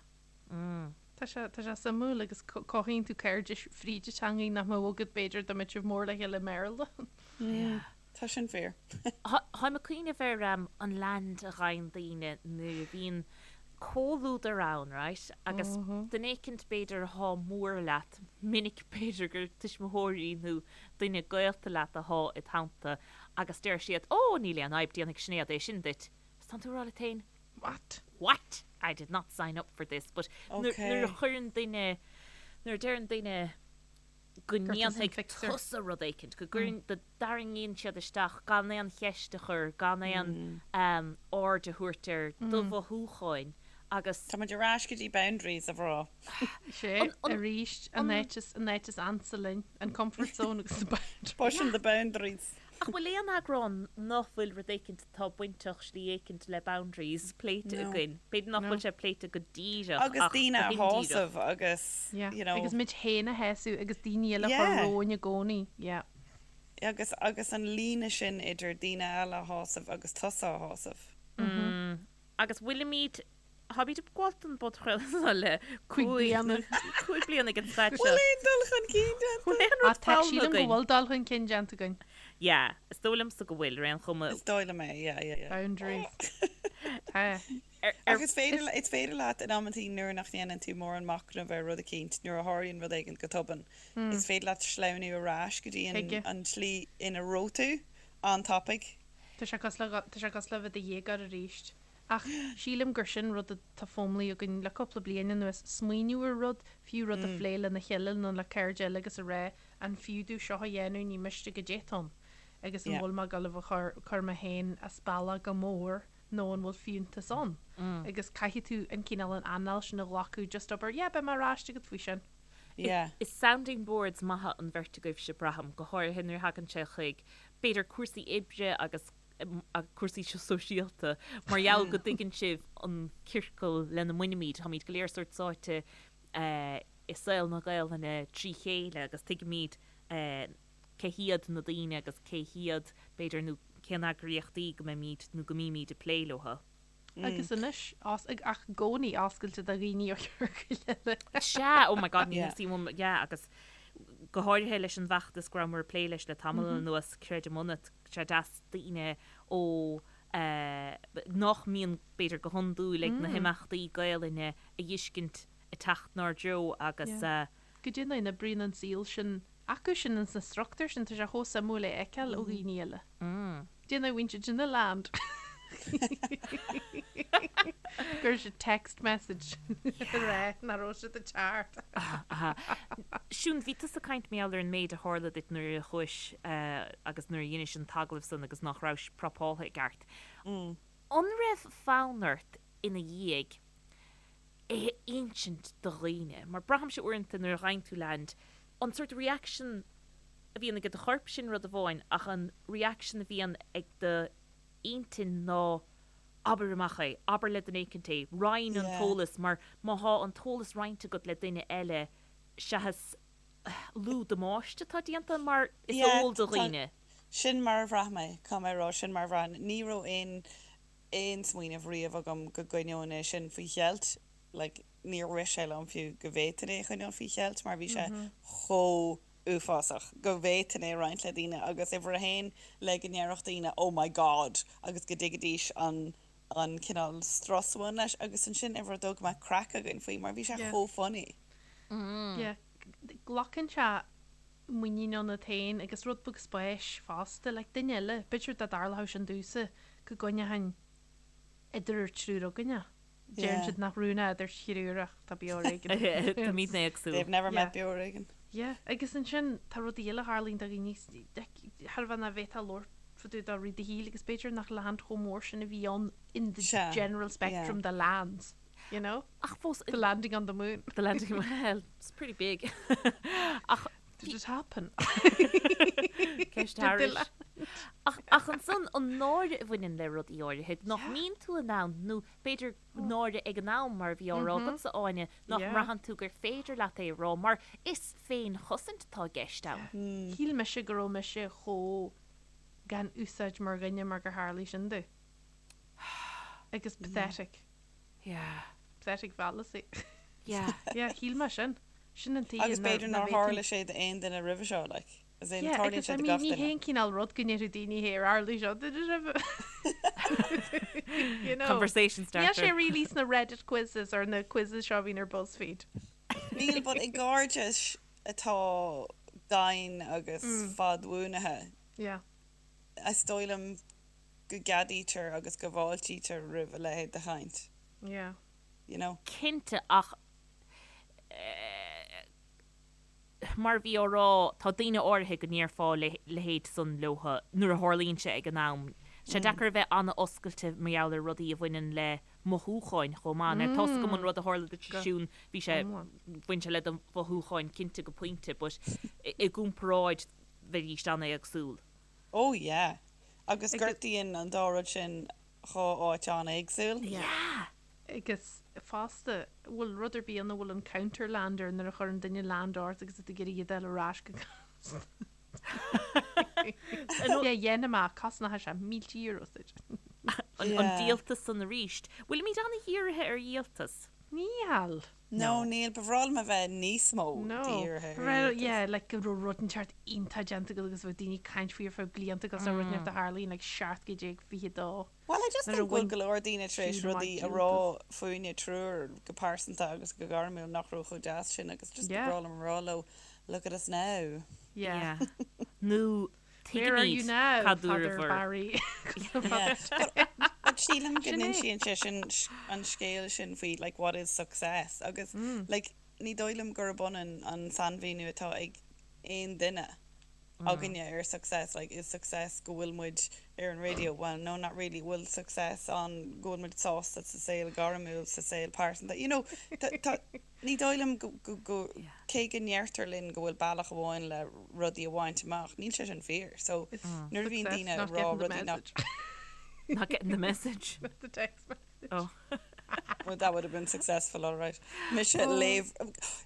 Tá sé, tá sé suimiúil agus cothaíonn tú cairdis fríd an teangaidh nach mbeadh agat b'fhéidir dá mbeadh sibh mór le chéile i mBéarla. Yeah. Tá sin fíor. Táim ag cuimhneamh ar an land a ghaibheann daoine nuair a bhíonn comhluadar ann, right, agus duine éicint b'fhéidir athá mór leat, minic b'fhéidir gur tuismitheoirí nó duine gaolta leat athá id theannta agus deir siad, Ó, níl aon fhadhb, déanfaidh Sinéad é sin duit. Agus tánn tú ag rá leat féin, What? What? I did not sign up for this. But nuair a chuireann duine, nuair a deireann duine go ndéanfaidh tusa rud éicint, go gcuireann, go dtarraingíonn siad isteach gan aon cheist a chur, gan aon aird a thabhairt ar do mhothúcháin agus. Tá muid ar ais go dtí boundaries, a mhná. Sé, arís, an áit is, an áit is ansa linn, an comfort zone agus the boundaries. Pushing the boundaries. Ach bhfuil aon eagrán nach bhfuil rud éicint atá bainteach slí éicint le boundaries pléite againn? B'fhéidir nach bhfuil sé pléite go díreach ach go daoine a shásamh agus you know. Agus muid féin a shásamh agus daoine eile a chur romhainn i gcónaí. Yeah. Agus agus an líne sin idir daoine eile a shásamh agus tusa a shásamh. Agus bhfuilimid Táimid ag gabháil don bpodchraoladh seo le 5 bliana ag an staid seo. Bhfuil aon dul chun cinn déanta? Bhfuil aon rud foghlamtha againn? Sílim go bhfuil dul chun cinn déanta againn. Yeah, is dóigh liomsa go bhfuil, ar aon chuma. Is dóigh liom é, yeah, yeah, yeah. Boundaries. Tá. Ach is féidir, is féidir leat in amantaí nuair nach ndéanann tú mórán machnaimh ar rud eicínt, nuair a tharlaíonn rud éigin go tobann, is féidir leat sleamhnú ar ais go dtí an tslí ina raibh tú an-tapaidh. Tá sé cosúil le, tá sé cosúil le bheith i do dhéagóir arís. Ach sílim gur sin rud atá foghlamtha againn le cúpla bliain anuas, smaoineamh ar rud, fiú rud a phlé lena chéile nó le cairde eile agus a rá, an fiú domh seo a dhéanamh, ní miste goidé atá ann agus an bhfuil mé ag dul a chur, cur mé féin as bealach go mór nó an bhfuil fiúntas ann? Agus caithfidh tú an cineál an anáil sin a ghlacadh, just abair, yeah, beidh mé ar ais agat faoi sin. Yeah. Is sounding boards maithe an bheirt agaibhse, braithim, go háirithe nuair a thagann sé chuig, b'fhéidir, cúrsaí oibre agus cúrsaí sóisialta, mar gheall go dtuigeann sibh an ciorcal lena mbainimid. Táimid go léir sórt sáite i saol na Gaelainne trí chéile agus tuigimid cé hiad na daoine agus cé hiad, b'fhéidir, nó cén eagraíochtaí go mbeimid nó go mbímid ag plé leo. Agus anois, ach i gcónaí oscailte do dhaoine ó chiorcail eile. Sea, oh my God, ní theastaíonn uaim, yeah, agus go háirithe leis an bhfeachtas go rabhamar ag plé leis le tamall anuas, Creidim Ionat, sé deas daoine ó nach mbíonn b'fhéidir go hiondúil ag na himeachtaí Gaelainne a fheiscint ag teacht 'nár dtreo agus. Goidé an dóigh a n-oibríonn an saol sin acu sin ins na struchtúir sin, tá sé chomh suimiúil é a fheiceáil ó dhaoine eile. Déanamh a bhíonn siad sin a land. Chuir siad text message a rá nach raibh siad ag teacht. Siún, bhí tusa ag caint mar gheall ar an méid a tharla duit nuair a chuais agus nuair a dheinis an t-agallamh san agus nach rabhais prapáltha i gceart. An raibh fonn ort ina dhiaidh é a insint do dhaoine? Mar braithimse uaireanta nuair a ghaibheann tú land, an sórt reaction a bhíonn ag do chorp sin rud amháin ach an reaction a bhíonn ag do intinn ná abair amach é, abair le duine éicint é, roinn an t-eolas mar má thá an t-eolas roinnte agat le duine eile seachas lú damáiste atá déanta mar is eol do dhaoine. Sin mar a bhraith mé, caithfidh mé a rá, sin mar a bhraith. Ní raibh aon aon smaoineamh riamh agam go gcoinneoinn é sin faoi cheilt, like níor rith sé liom fiú go bhféadfainn é a choinneáil faoi cheilt mar bhí sé chomh uafásach go bhféadfainn é a roinnt le daoine agus uimhir a haon le go ndéarfadh daoine oh my god agus go dtuigfidís an an cineál strus a bhain leis agus ansin uimhir a dó go mbeadh craic againn faoi mar bhí sé chomh funny. Yeah, glacann sé muinín ionat féin agus rud beag spáis fosta, like duine eile, b'fhéidir dá dtarlódh sin domhsa go gcoinneochainn idir an triúr againn é. Deireann siad nach rún é idir thriúr ach tá beo ar éigean. Táimidne éagsúil. They've never met beo ar éigean. Yeah, agus ansin tá rudaí eile a tharlaíonn do dhaoine, thar a bheith nach bhféadfá labhairt fá dtaobh de i rith do shaoil agus b'fhéidir nach land chomh mór sin a bhí ann in the general spectrum de lands, you know? Ach fós. The landing on the moon. The landing, well, it's pretty big. Ach. Did it happen? Ceist thairis. Ach, ach ansan, an náire a bhaineann le rudaí áirithe, nach mbíonn tú in ann, nó b'fhéidir náire ag an am, mar a bhí á rá agatsa, Áine, nach mbraitheann tú gur féidir leat é a rá, mar is féinchosaint atá i gceist ann. Shíl mise go raibh mise chomh gan úsáid mar dhuine mar gur tharlaigh sin domh. Agus pathetic. Yeah. Pathetic fallacy. Yeah. Yeah, shíl mé sin. Sin an tuige Agus b'fhéidir nár tharla sé d'aon duine roimhe seo, like. As in, Yeah, tarlaíonn agus sé I do mean, gach ní duine. haon cineál rud go ndéarfadh daoine hey, ar tharla seo duit roimhe. You know. Conversation Níl starter. sé really sna Reddit quizzes or na quizzes seo a bhíonn ar BuzzFeed. Níl, but i gcairdeas atá daingean agus fadbhuanaithe, Yeah. is dóigh liom go gceadaítear agus go bhfáiltítear roimh a leithéid de chaint. Yeah. You know? Cinnte, ach mar a bhí á rá, tá daoine áirithe go ndéarfá a leithéid san leotha nuair a tharlaíonn sé ag an am. Tá sé deacair a bheith an-oscailte mar gheall ar rudaí a bhaineann le mothúcháin chomh maith. Now tá's agam an rud a tharla duit a Siún, bhí sé, bhain sé le do mhothúcháin cinnte go pointe, but i gcomparáid bheidís an-éagsúil. Oh yeah. Agus gortaíonn an dá rud sin dhá áit an-éagsúil. Yeah! Agus fosta, bhfuil rud ar bith ann a bhfuil an counter-lander nuair a chuireann duine land ort agus tú ag iarraidh iad a fháil ar ais go gasta. Yeah, dhéanfaidh mé, cosnóidh sé mílte euro duit. An díoltas san arís. Bhfuilimid an-dhírithe ar dhíoltas? Níl. No, níl. Ba bhreá liom a bheith níos mó dírithe ar Well, dhíoltas. yeah, like go raibh rud inteacht iontach déanta agat agus bheadh daoine ag caint faoi ar feadh blianta agus rud inteacht a tharlaíonn like 1722. Well, I just Nuair a think go bhfuil bhain go leor daoine tar éis siad amach rudaí a rá díoltas. fúinne triúr go pearsanta agus go gairmiúil nach raibh chomh deas sin agus just ba Yeah. bhreá liom a rá leo, look at us now. Yeah. Yeah. Nó Where are you tuigimid now, cad Father dúradh. Barry? Yeah. But, but sílim go Sin é. n-insíonn sé sin an scéal sin faoi like what is success agus like ní dóigh liom gurb ionann an sainmhíniú atá ag aon duine againne ar success, like is success go bhfuil muid ar an radio, well no not really, bhfuil success ann go bhfuil muid sásta sa saol gairmiúil, sa saol pearsanta, you know, tá, tá, ní dóigh liom go, go, go, cé go ndeirtear linn go bhfuil bealach amháin le rudaí a bhaint amach, níl sé sin fíor, so nuair a bhíonn Success daoine not ag rá getting the rudaí nach, message. Not getting the message. Not the text message. Oh. Well, that would have been successful, all right. Mise léamh,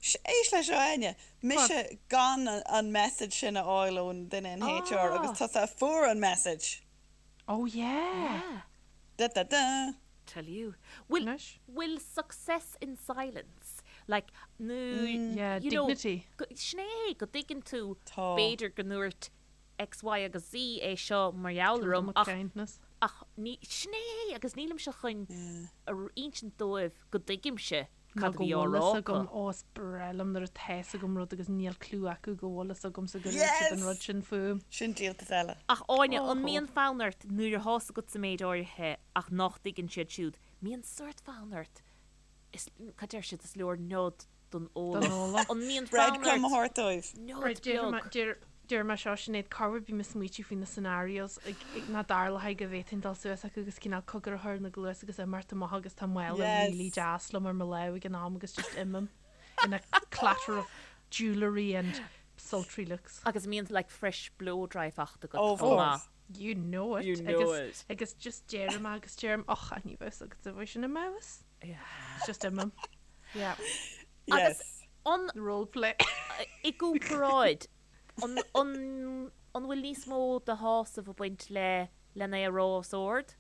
éist leis seo Áine, mise gan an message sin a fháil ón duine in HR agus tusa a fuair an message. Oh yeah. Da da da. Tell you. Bhfuil, Anois. bhfuil success in silence? Like, nó, Yeah, you know, dignity. go- sin é, go dtuigeann tú, Tá. b'fhéidir go ndúirt X, Y agus Z é seo mar gheall orm ach, Kindness. ach ní, sin é agus nílimse chun a insint dóibh go dtuigimse Nó cad a go bhí á bhfuil rá fhios acu. agam, ó is breá liom nuair atá fhios agam rud agus níl clue acu go bhfuil fhios agamsa go dúirt siad an Yes! rud sin fúm. Sin díoltas eile. Ach Áine, an Óhó. mbíonn fonn ort nuair atá fhios agat sa méid áirithe ach nach dtuigeann siad siúd, mbíonn sórt fonn ort, is, cad deir siad, is leor nod don eolach. An mbíonn fonn Breadcrumb a ort thabhairt dóibh. nod Right, déarfaidh mé, beag? deir, déarfaidh mé seo Sinéad, corruair bím ag smaoitiú faoi na scenarios ag, ag, nach dtarlóidh go bhféadfainn dul suas acu agus cineál cogar a chur ina gcluas agus imeacht amach agus tá mála Yes. really deas liom ar mo lámh ag an am agus just imím in a clatter of jewellery and sultry looks. Agus mbíonn like fresh blow dry fachta agat Oh, of chomh maith. course. You know it. You know agus, it. Agus just deirim agus deirim, och, ní bheadh fhios agat a bheith sin i m'fheabhas. Yeah. Just imím. Yeah. Agus Yes. an Role play. i gcomparáid, an, an, an bhfuil níos mó de shásamh ag baint le len é a rá os ard?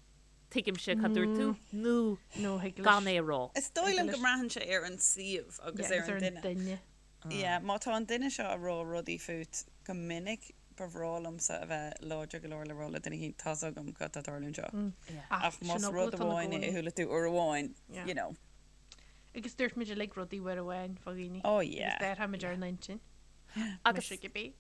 Tuigimse cad dúirt tú, nó No, thig leis. gan é a rá. Is dóigh liom go mbraitheann sé ar an suíomh agus Yeah, ar an duine. duine. Yeah, má tá an duine seo ag rá rudaí fút go minic, ba bhreá liomsa a bheith láidir go leor le rá le duine éicint, tá's agam cad tá ag tarlú anseo. Ach Sin más eagla rud atá na amháin é a gcónaí. chuala tú uair amháin, Yeah. you know. Agus dúirt muid uilig rudaí uair amháin fá dhaoine. Oh yeah. Agus déarfaimid ar an intinn. Agus Mise cibé.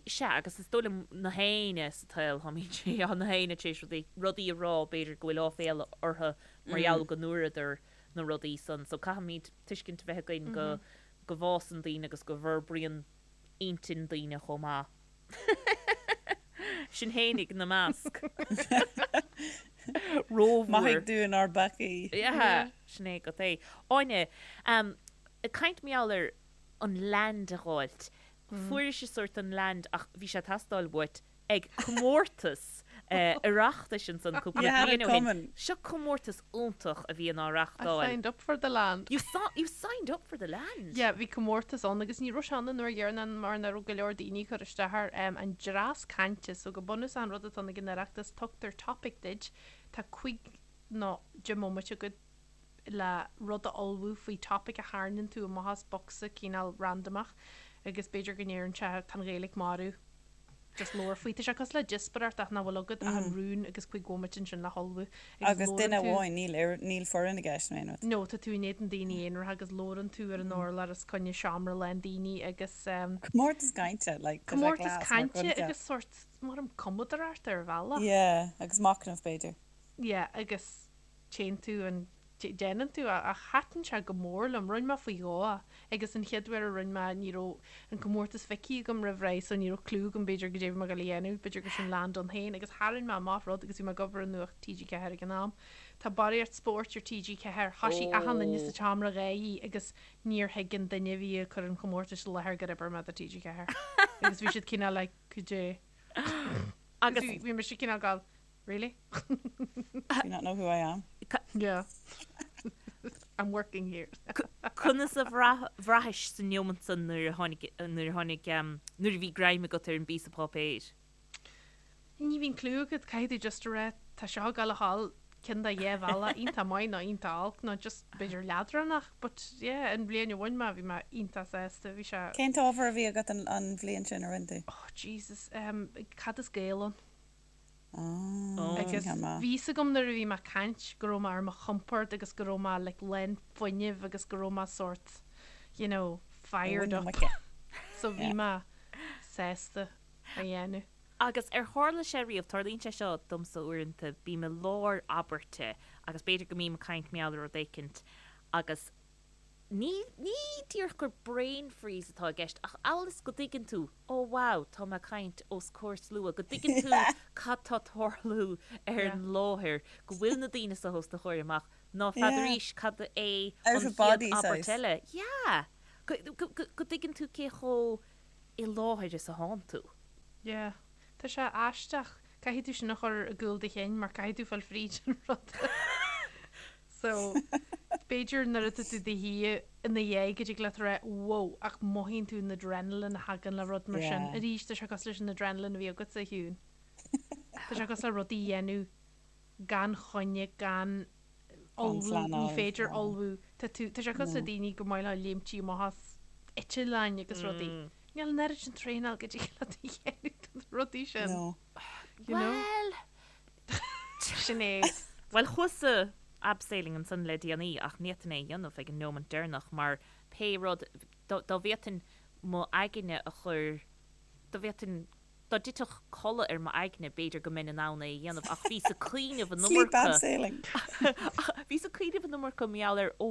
Sea, agus is dóigh liom na héinne sa tsaol, táimid, na héinne tar éis rudaí, rudaí a rá, b'fhéidir go bhfuil áiféala orthu mar gheall go ndúradar na rudaí san. So caithfimid tuiscint a bheith againn go, go bhfásann daoine agus go bhforbraíonn intinn daoine chomh maith. Sinn fhéinig ina measc. Rómhór. Maithigh dúinn ár bpeacaí. Yeah, sin é agat é. Áine, ag caint mar gheall ar an land a dh'fháilt, fuairis sórt an land ach bhí sé ag teastáil uait ag comórtas Oireachtais ansan cúpla You had bliain it ó shin. coming. Seo comórtas iontach a bhíonn á I reachtáil. signed up for the land. You saw, you signed up for the land? Yeah, bhí comórtas ann agus ní raibh sé ann an uair dheireanach mar nach raibh go leor daoine ag cur isteach air. Um, an dreas cainte, so go bunúsach an rud atá ann ag an Oireachtas, tugtar topic duit, tá cuig nó deich mbomaite agat. le rud a ullmhú faoi topic a tharraingíonn tú amach as bocsa cineál randamach agus b'fhéidir go ndeireann sé tá an Ghaeilge marbh just labhair faoi. Tá sé cosúil le díospóireacht ach nach bhfuil agat ach an rún agus 5 bhomaite ansin le hullmhú agus Agus duine labhrann tú amháin, níl ar, níl foireann i gceist nó aon rud. No, tá tú in éadan daoine aonaracha agus labhrann tú ar an urlár os coinne seomra lán daoine agus ehm. Comórtas cainte, like, tá sé Comórtas class mar cainte choincheap. agus sórt, mar an cumadóireacht ar bhealach. Yeah, agus machnamh b'fhéidir. Yeah, agus téann tú an, déanann tú ach thaitin sé go mór liom. Rinne mé faoi dhó é agus an chéad uair a rinne mé ní raibh an comórtas feicthe agam roimh ré so ní raibh clue agam b'fhéidir goidé a bhí mé ag dul a dhéanamh, b'fhéidir gur sin land ann féin agus tharraing mé amach rud agus bhí mé ag obair i Nuacht TG4 ag an am. Tá barraíocht spóirt ar TG4, thoisigh achan duine sa tseomra ag gáirí agus níor thuig an duine a bhí ag cur an chomórtais i láthair gur oibir mé do TG4 agus bhí siad cineál like goidé agus bhí mise cineál ag gabháil Really? Do you not know who I am? Yeah. I'm working here. Conas a bhraithis sa neomant san nuair a tháinig, nuair a tháinig, nuair a bhí greim agat ar an bpíosa páipéir? Ní bhíonn clue agat, caithfidh tú just a rá tá seo ag gabháil a dhul ceann de dhá bhealach, iontach maith nó iontach olc nó just b'fhéidir leadránach but yeah an bhliain a bhain mé bhí mé iontach sásta, bhí sé. Cén t-ábhar a bhí agat an bhliain sin a rinne tú? Oh Jesus, um, cad is Gael ann? Agus bhí fhios agam nuair a bhí mé ag caint go raibh mé ar mo chompord agus go raibh mé like lán fuinnimh agus go raibh mé sórt you know fired up. So bhí mé sásta a dhéanamh. Agus ar tharla sé riamh, tarlaíonn sé seo domsa uaireanta, bím i lár abairte agus b'fhéidir go mbím ag caint mar gheall ar rud éicint agus ní, ní díreach gur brain freeze atá i gceist ach amhail is go dtuigeann tú, oh wow, tá mé ag caint os comhair slua, go dtuigeann tú cad tá tarlú ar an láthair, go bhfuil na daoine seo os do chomhair amach, ná feadarís cad é an chéad abairt eile. Yeah! Go, go, go, go dtuigeann tú cé chomh i láthair is atánn tú. Yeah. Tá sé aisteach. Caithfidh tú sin a chur i gcúl do chinn mar caithfidh tú fáil fríd an rud. So, b'fhéidir nuair atá tú i do shuí ina dhiaidh go dtig leat a rá 'wow' ach mothaíonn tú an adrenaline a thagann le rud mar sin. Arís, tá sé cosúil leis an adrenaline a bhí agatsa, a Shiún. Tá sé cosúil le rudaí a dhéanamh gan choinne, gan ullmhú, ní féidir ullmhú. Tá tú, tá sé cosúil le daoine gur maith leo léimtí amach as eitleáin agus rudaí. Níl an oiread sin traenáil go dtig leat a dhéanamh do na rudaí sin. No. You know? Bhuel, Sinéad. Bhuel, chuas-sa abseiling ansan le déanaí ach ní fhéadfainn é a dhéanamh ag an neomant deireanach mar pé rud, dá bhféadfainn m'aigne a chur, dá bhféadfainn, dá dtitfeadh codladh ar m'aigne b'fhéidir go mbeinn in ann é a dhéanamh ach bhíos ag cuimhneamh an Sleep iomarca, abseiling. bhíos ag cuimhneamh an iomarca mar gheall ar, ó,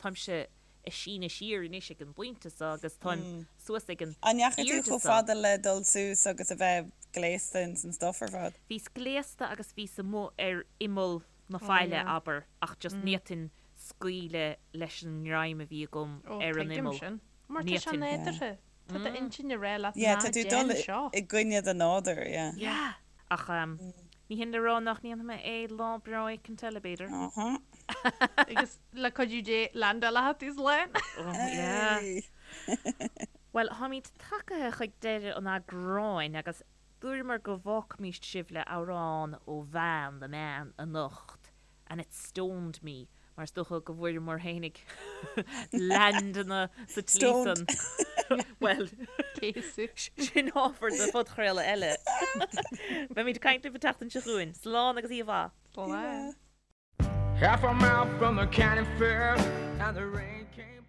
táimse ag síneadh siar anois ag an bpointe seo agus táim suas ag an An ndeachaigh tú airde chomh seo. fada le dul suas agus a bheith gléasta ins an stuff ar fad? Bhíos gléasta agus bhíos amuigh ar imeall na faille, abair, ach just ní fhéadfainn scaoileadh leis an ngreim a bhí agam ar an tuigim imeall. sin. Mar Ní tá sé fhéadfainn. nádúrtha. Tá d'intinn ag rá leat Yeah, ná tá tú ag déan dul seo. i gcoinne do nádúir, yeah. Yeah. Ach ní hin le rá nach ndéanfaidh mé é lá breá éicint eile, b'fhéidir. Uh-huh. Agus le cuidiú Dé, landáilfidh tú slán. Oh, yeah. Hey! Bhuel, táimid tagaithe chuig deireadh an eagráin agus dúramar go bhfágfaimíst sibh le amhrán ó bhean, the man, anocht. And it stoned me, mar is dócha go bhfuaireamar fhéinig landanna sa tslí san. Bhuel, sin ábhar do phodchraoladh eile. Beimid ag caint libh an tseachtain seo chugainn. Slán agus oíche mhaith. Slán. Half a mile from the county fair and the rain came.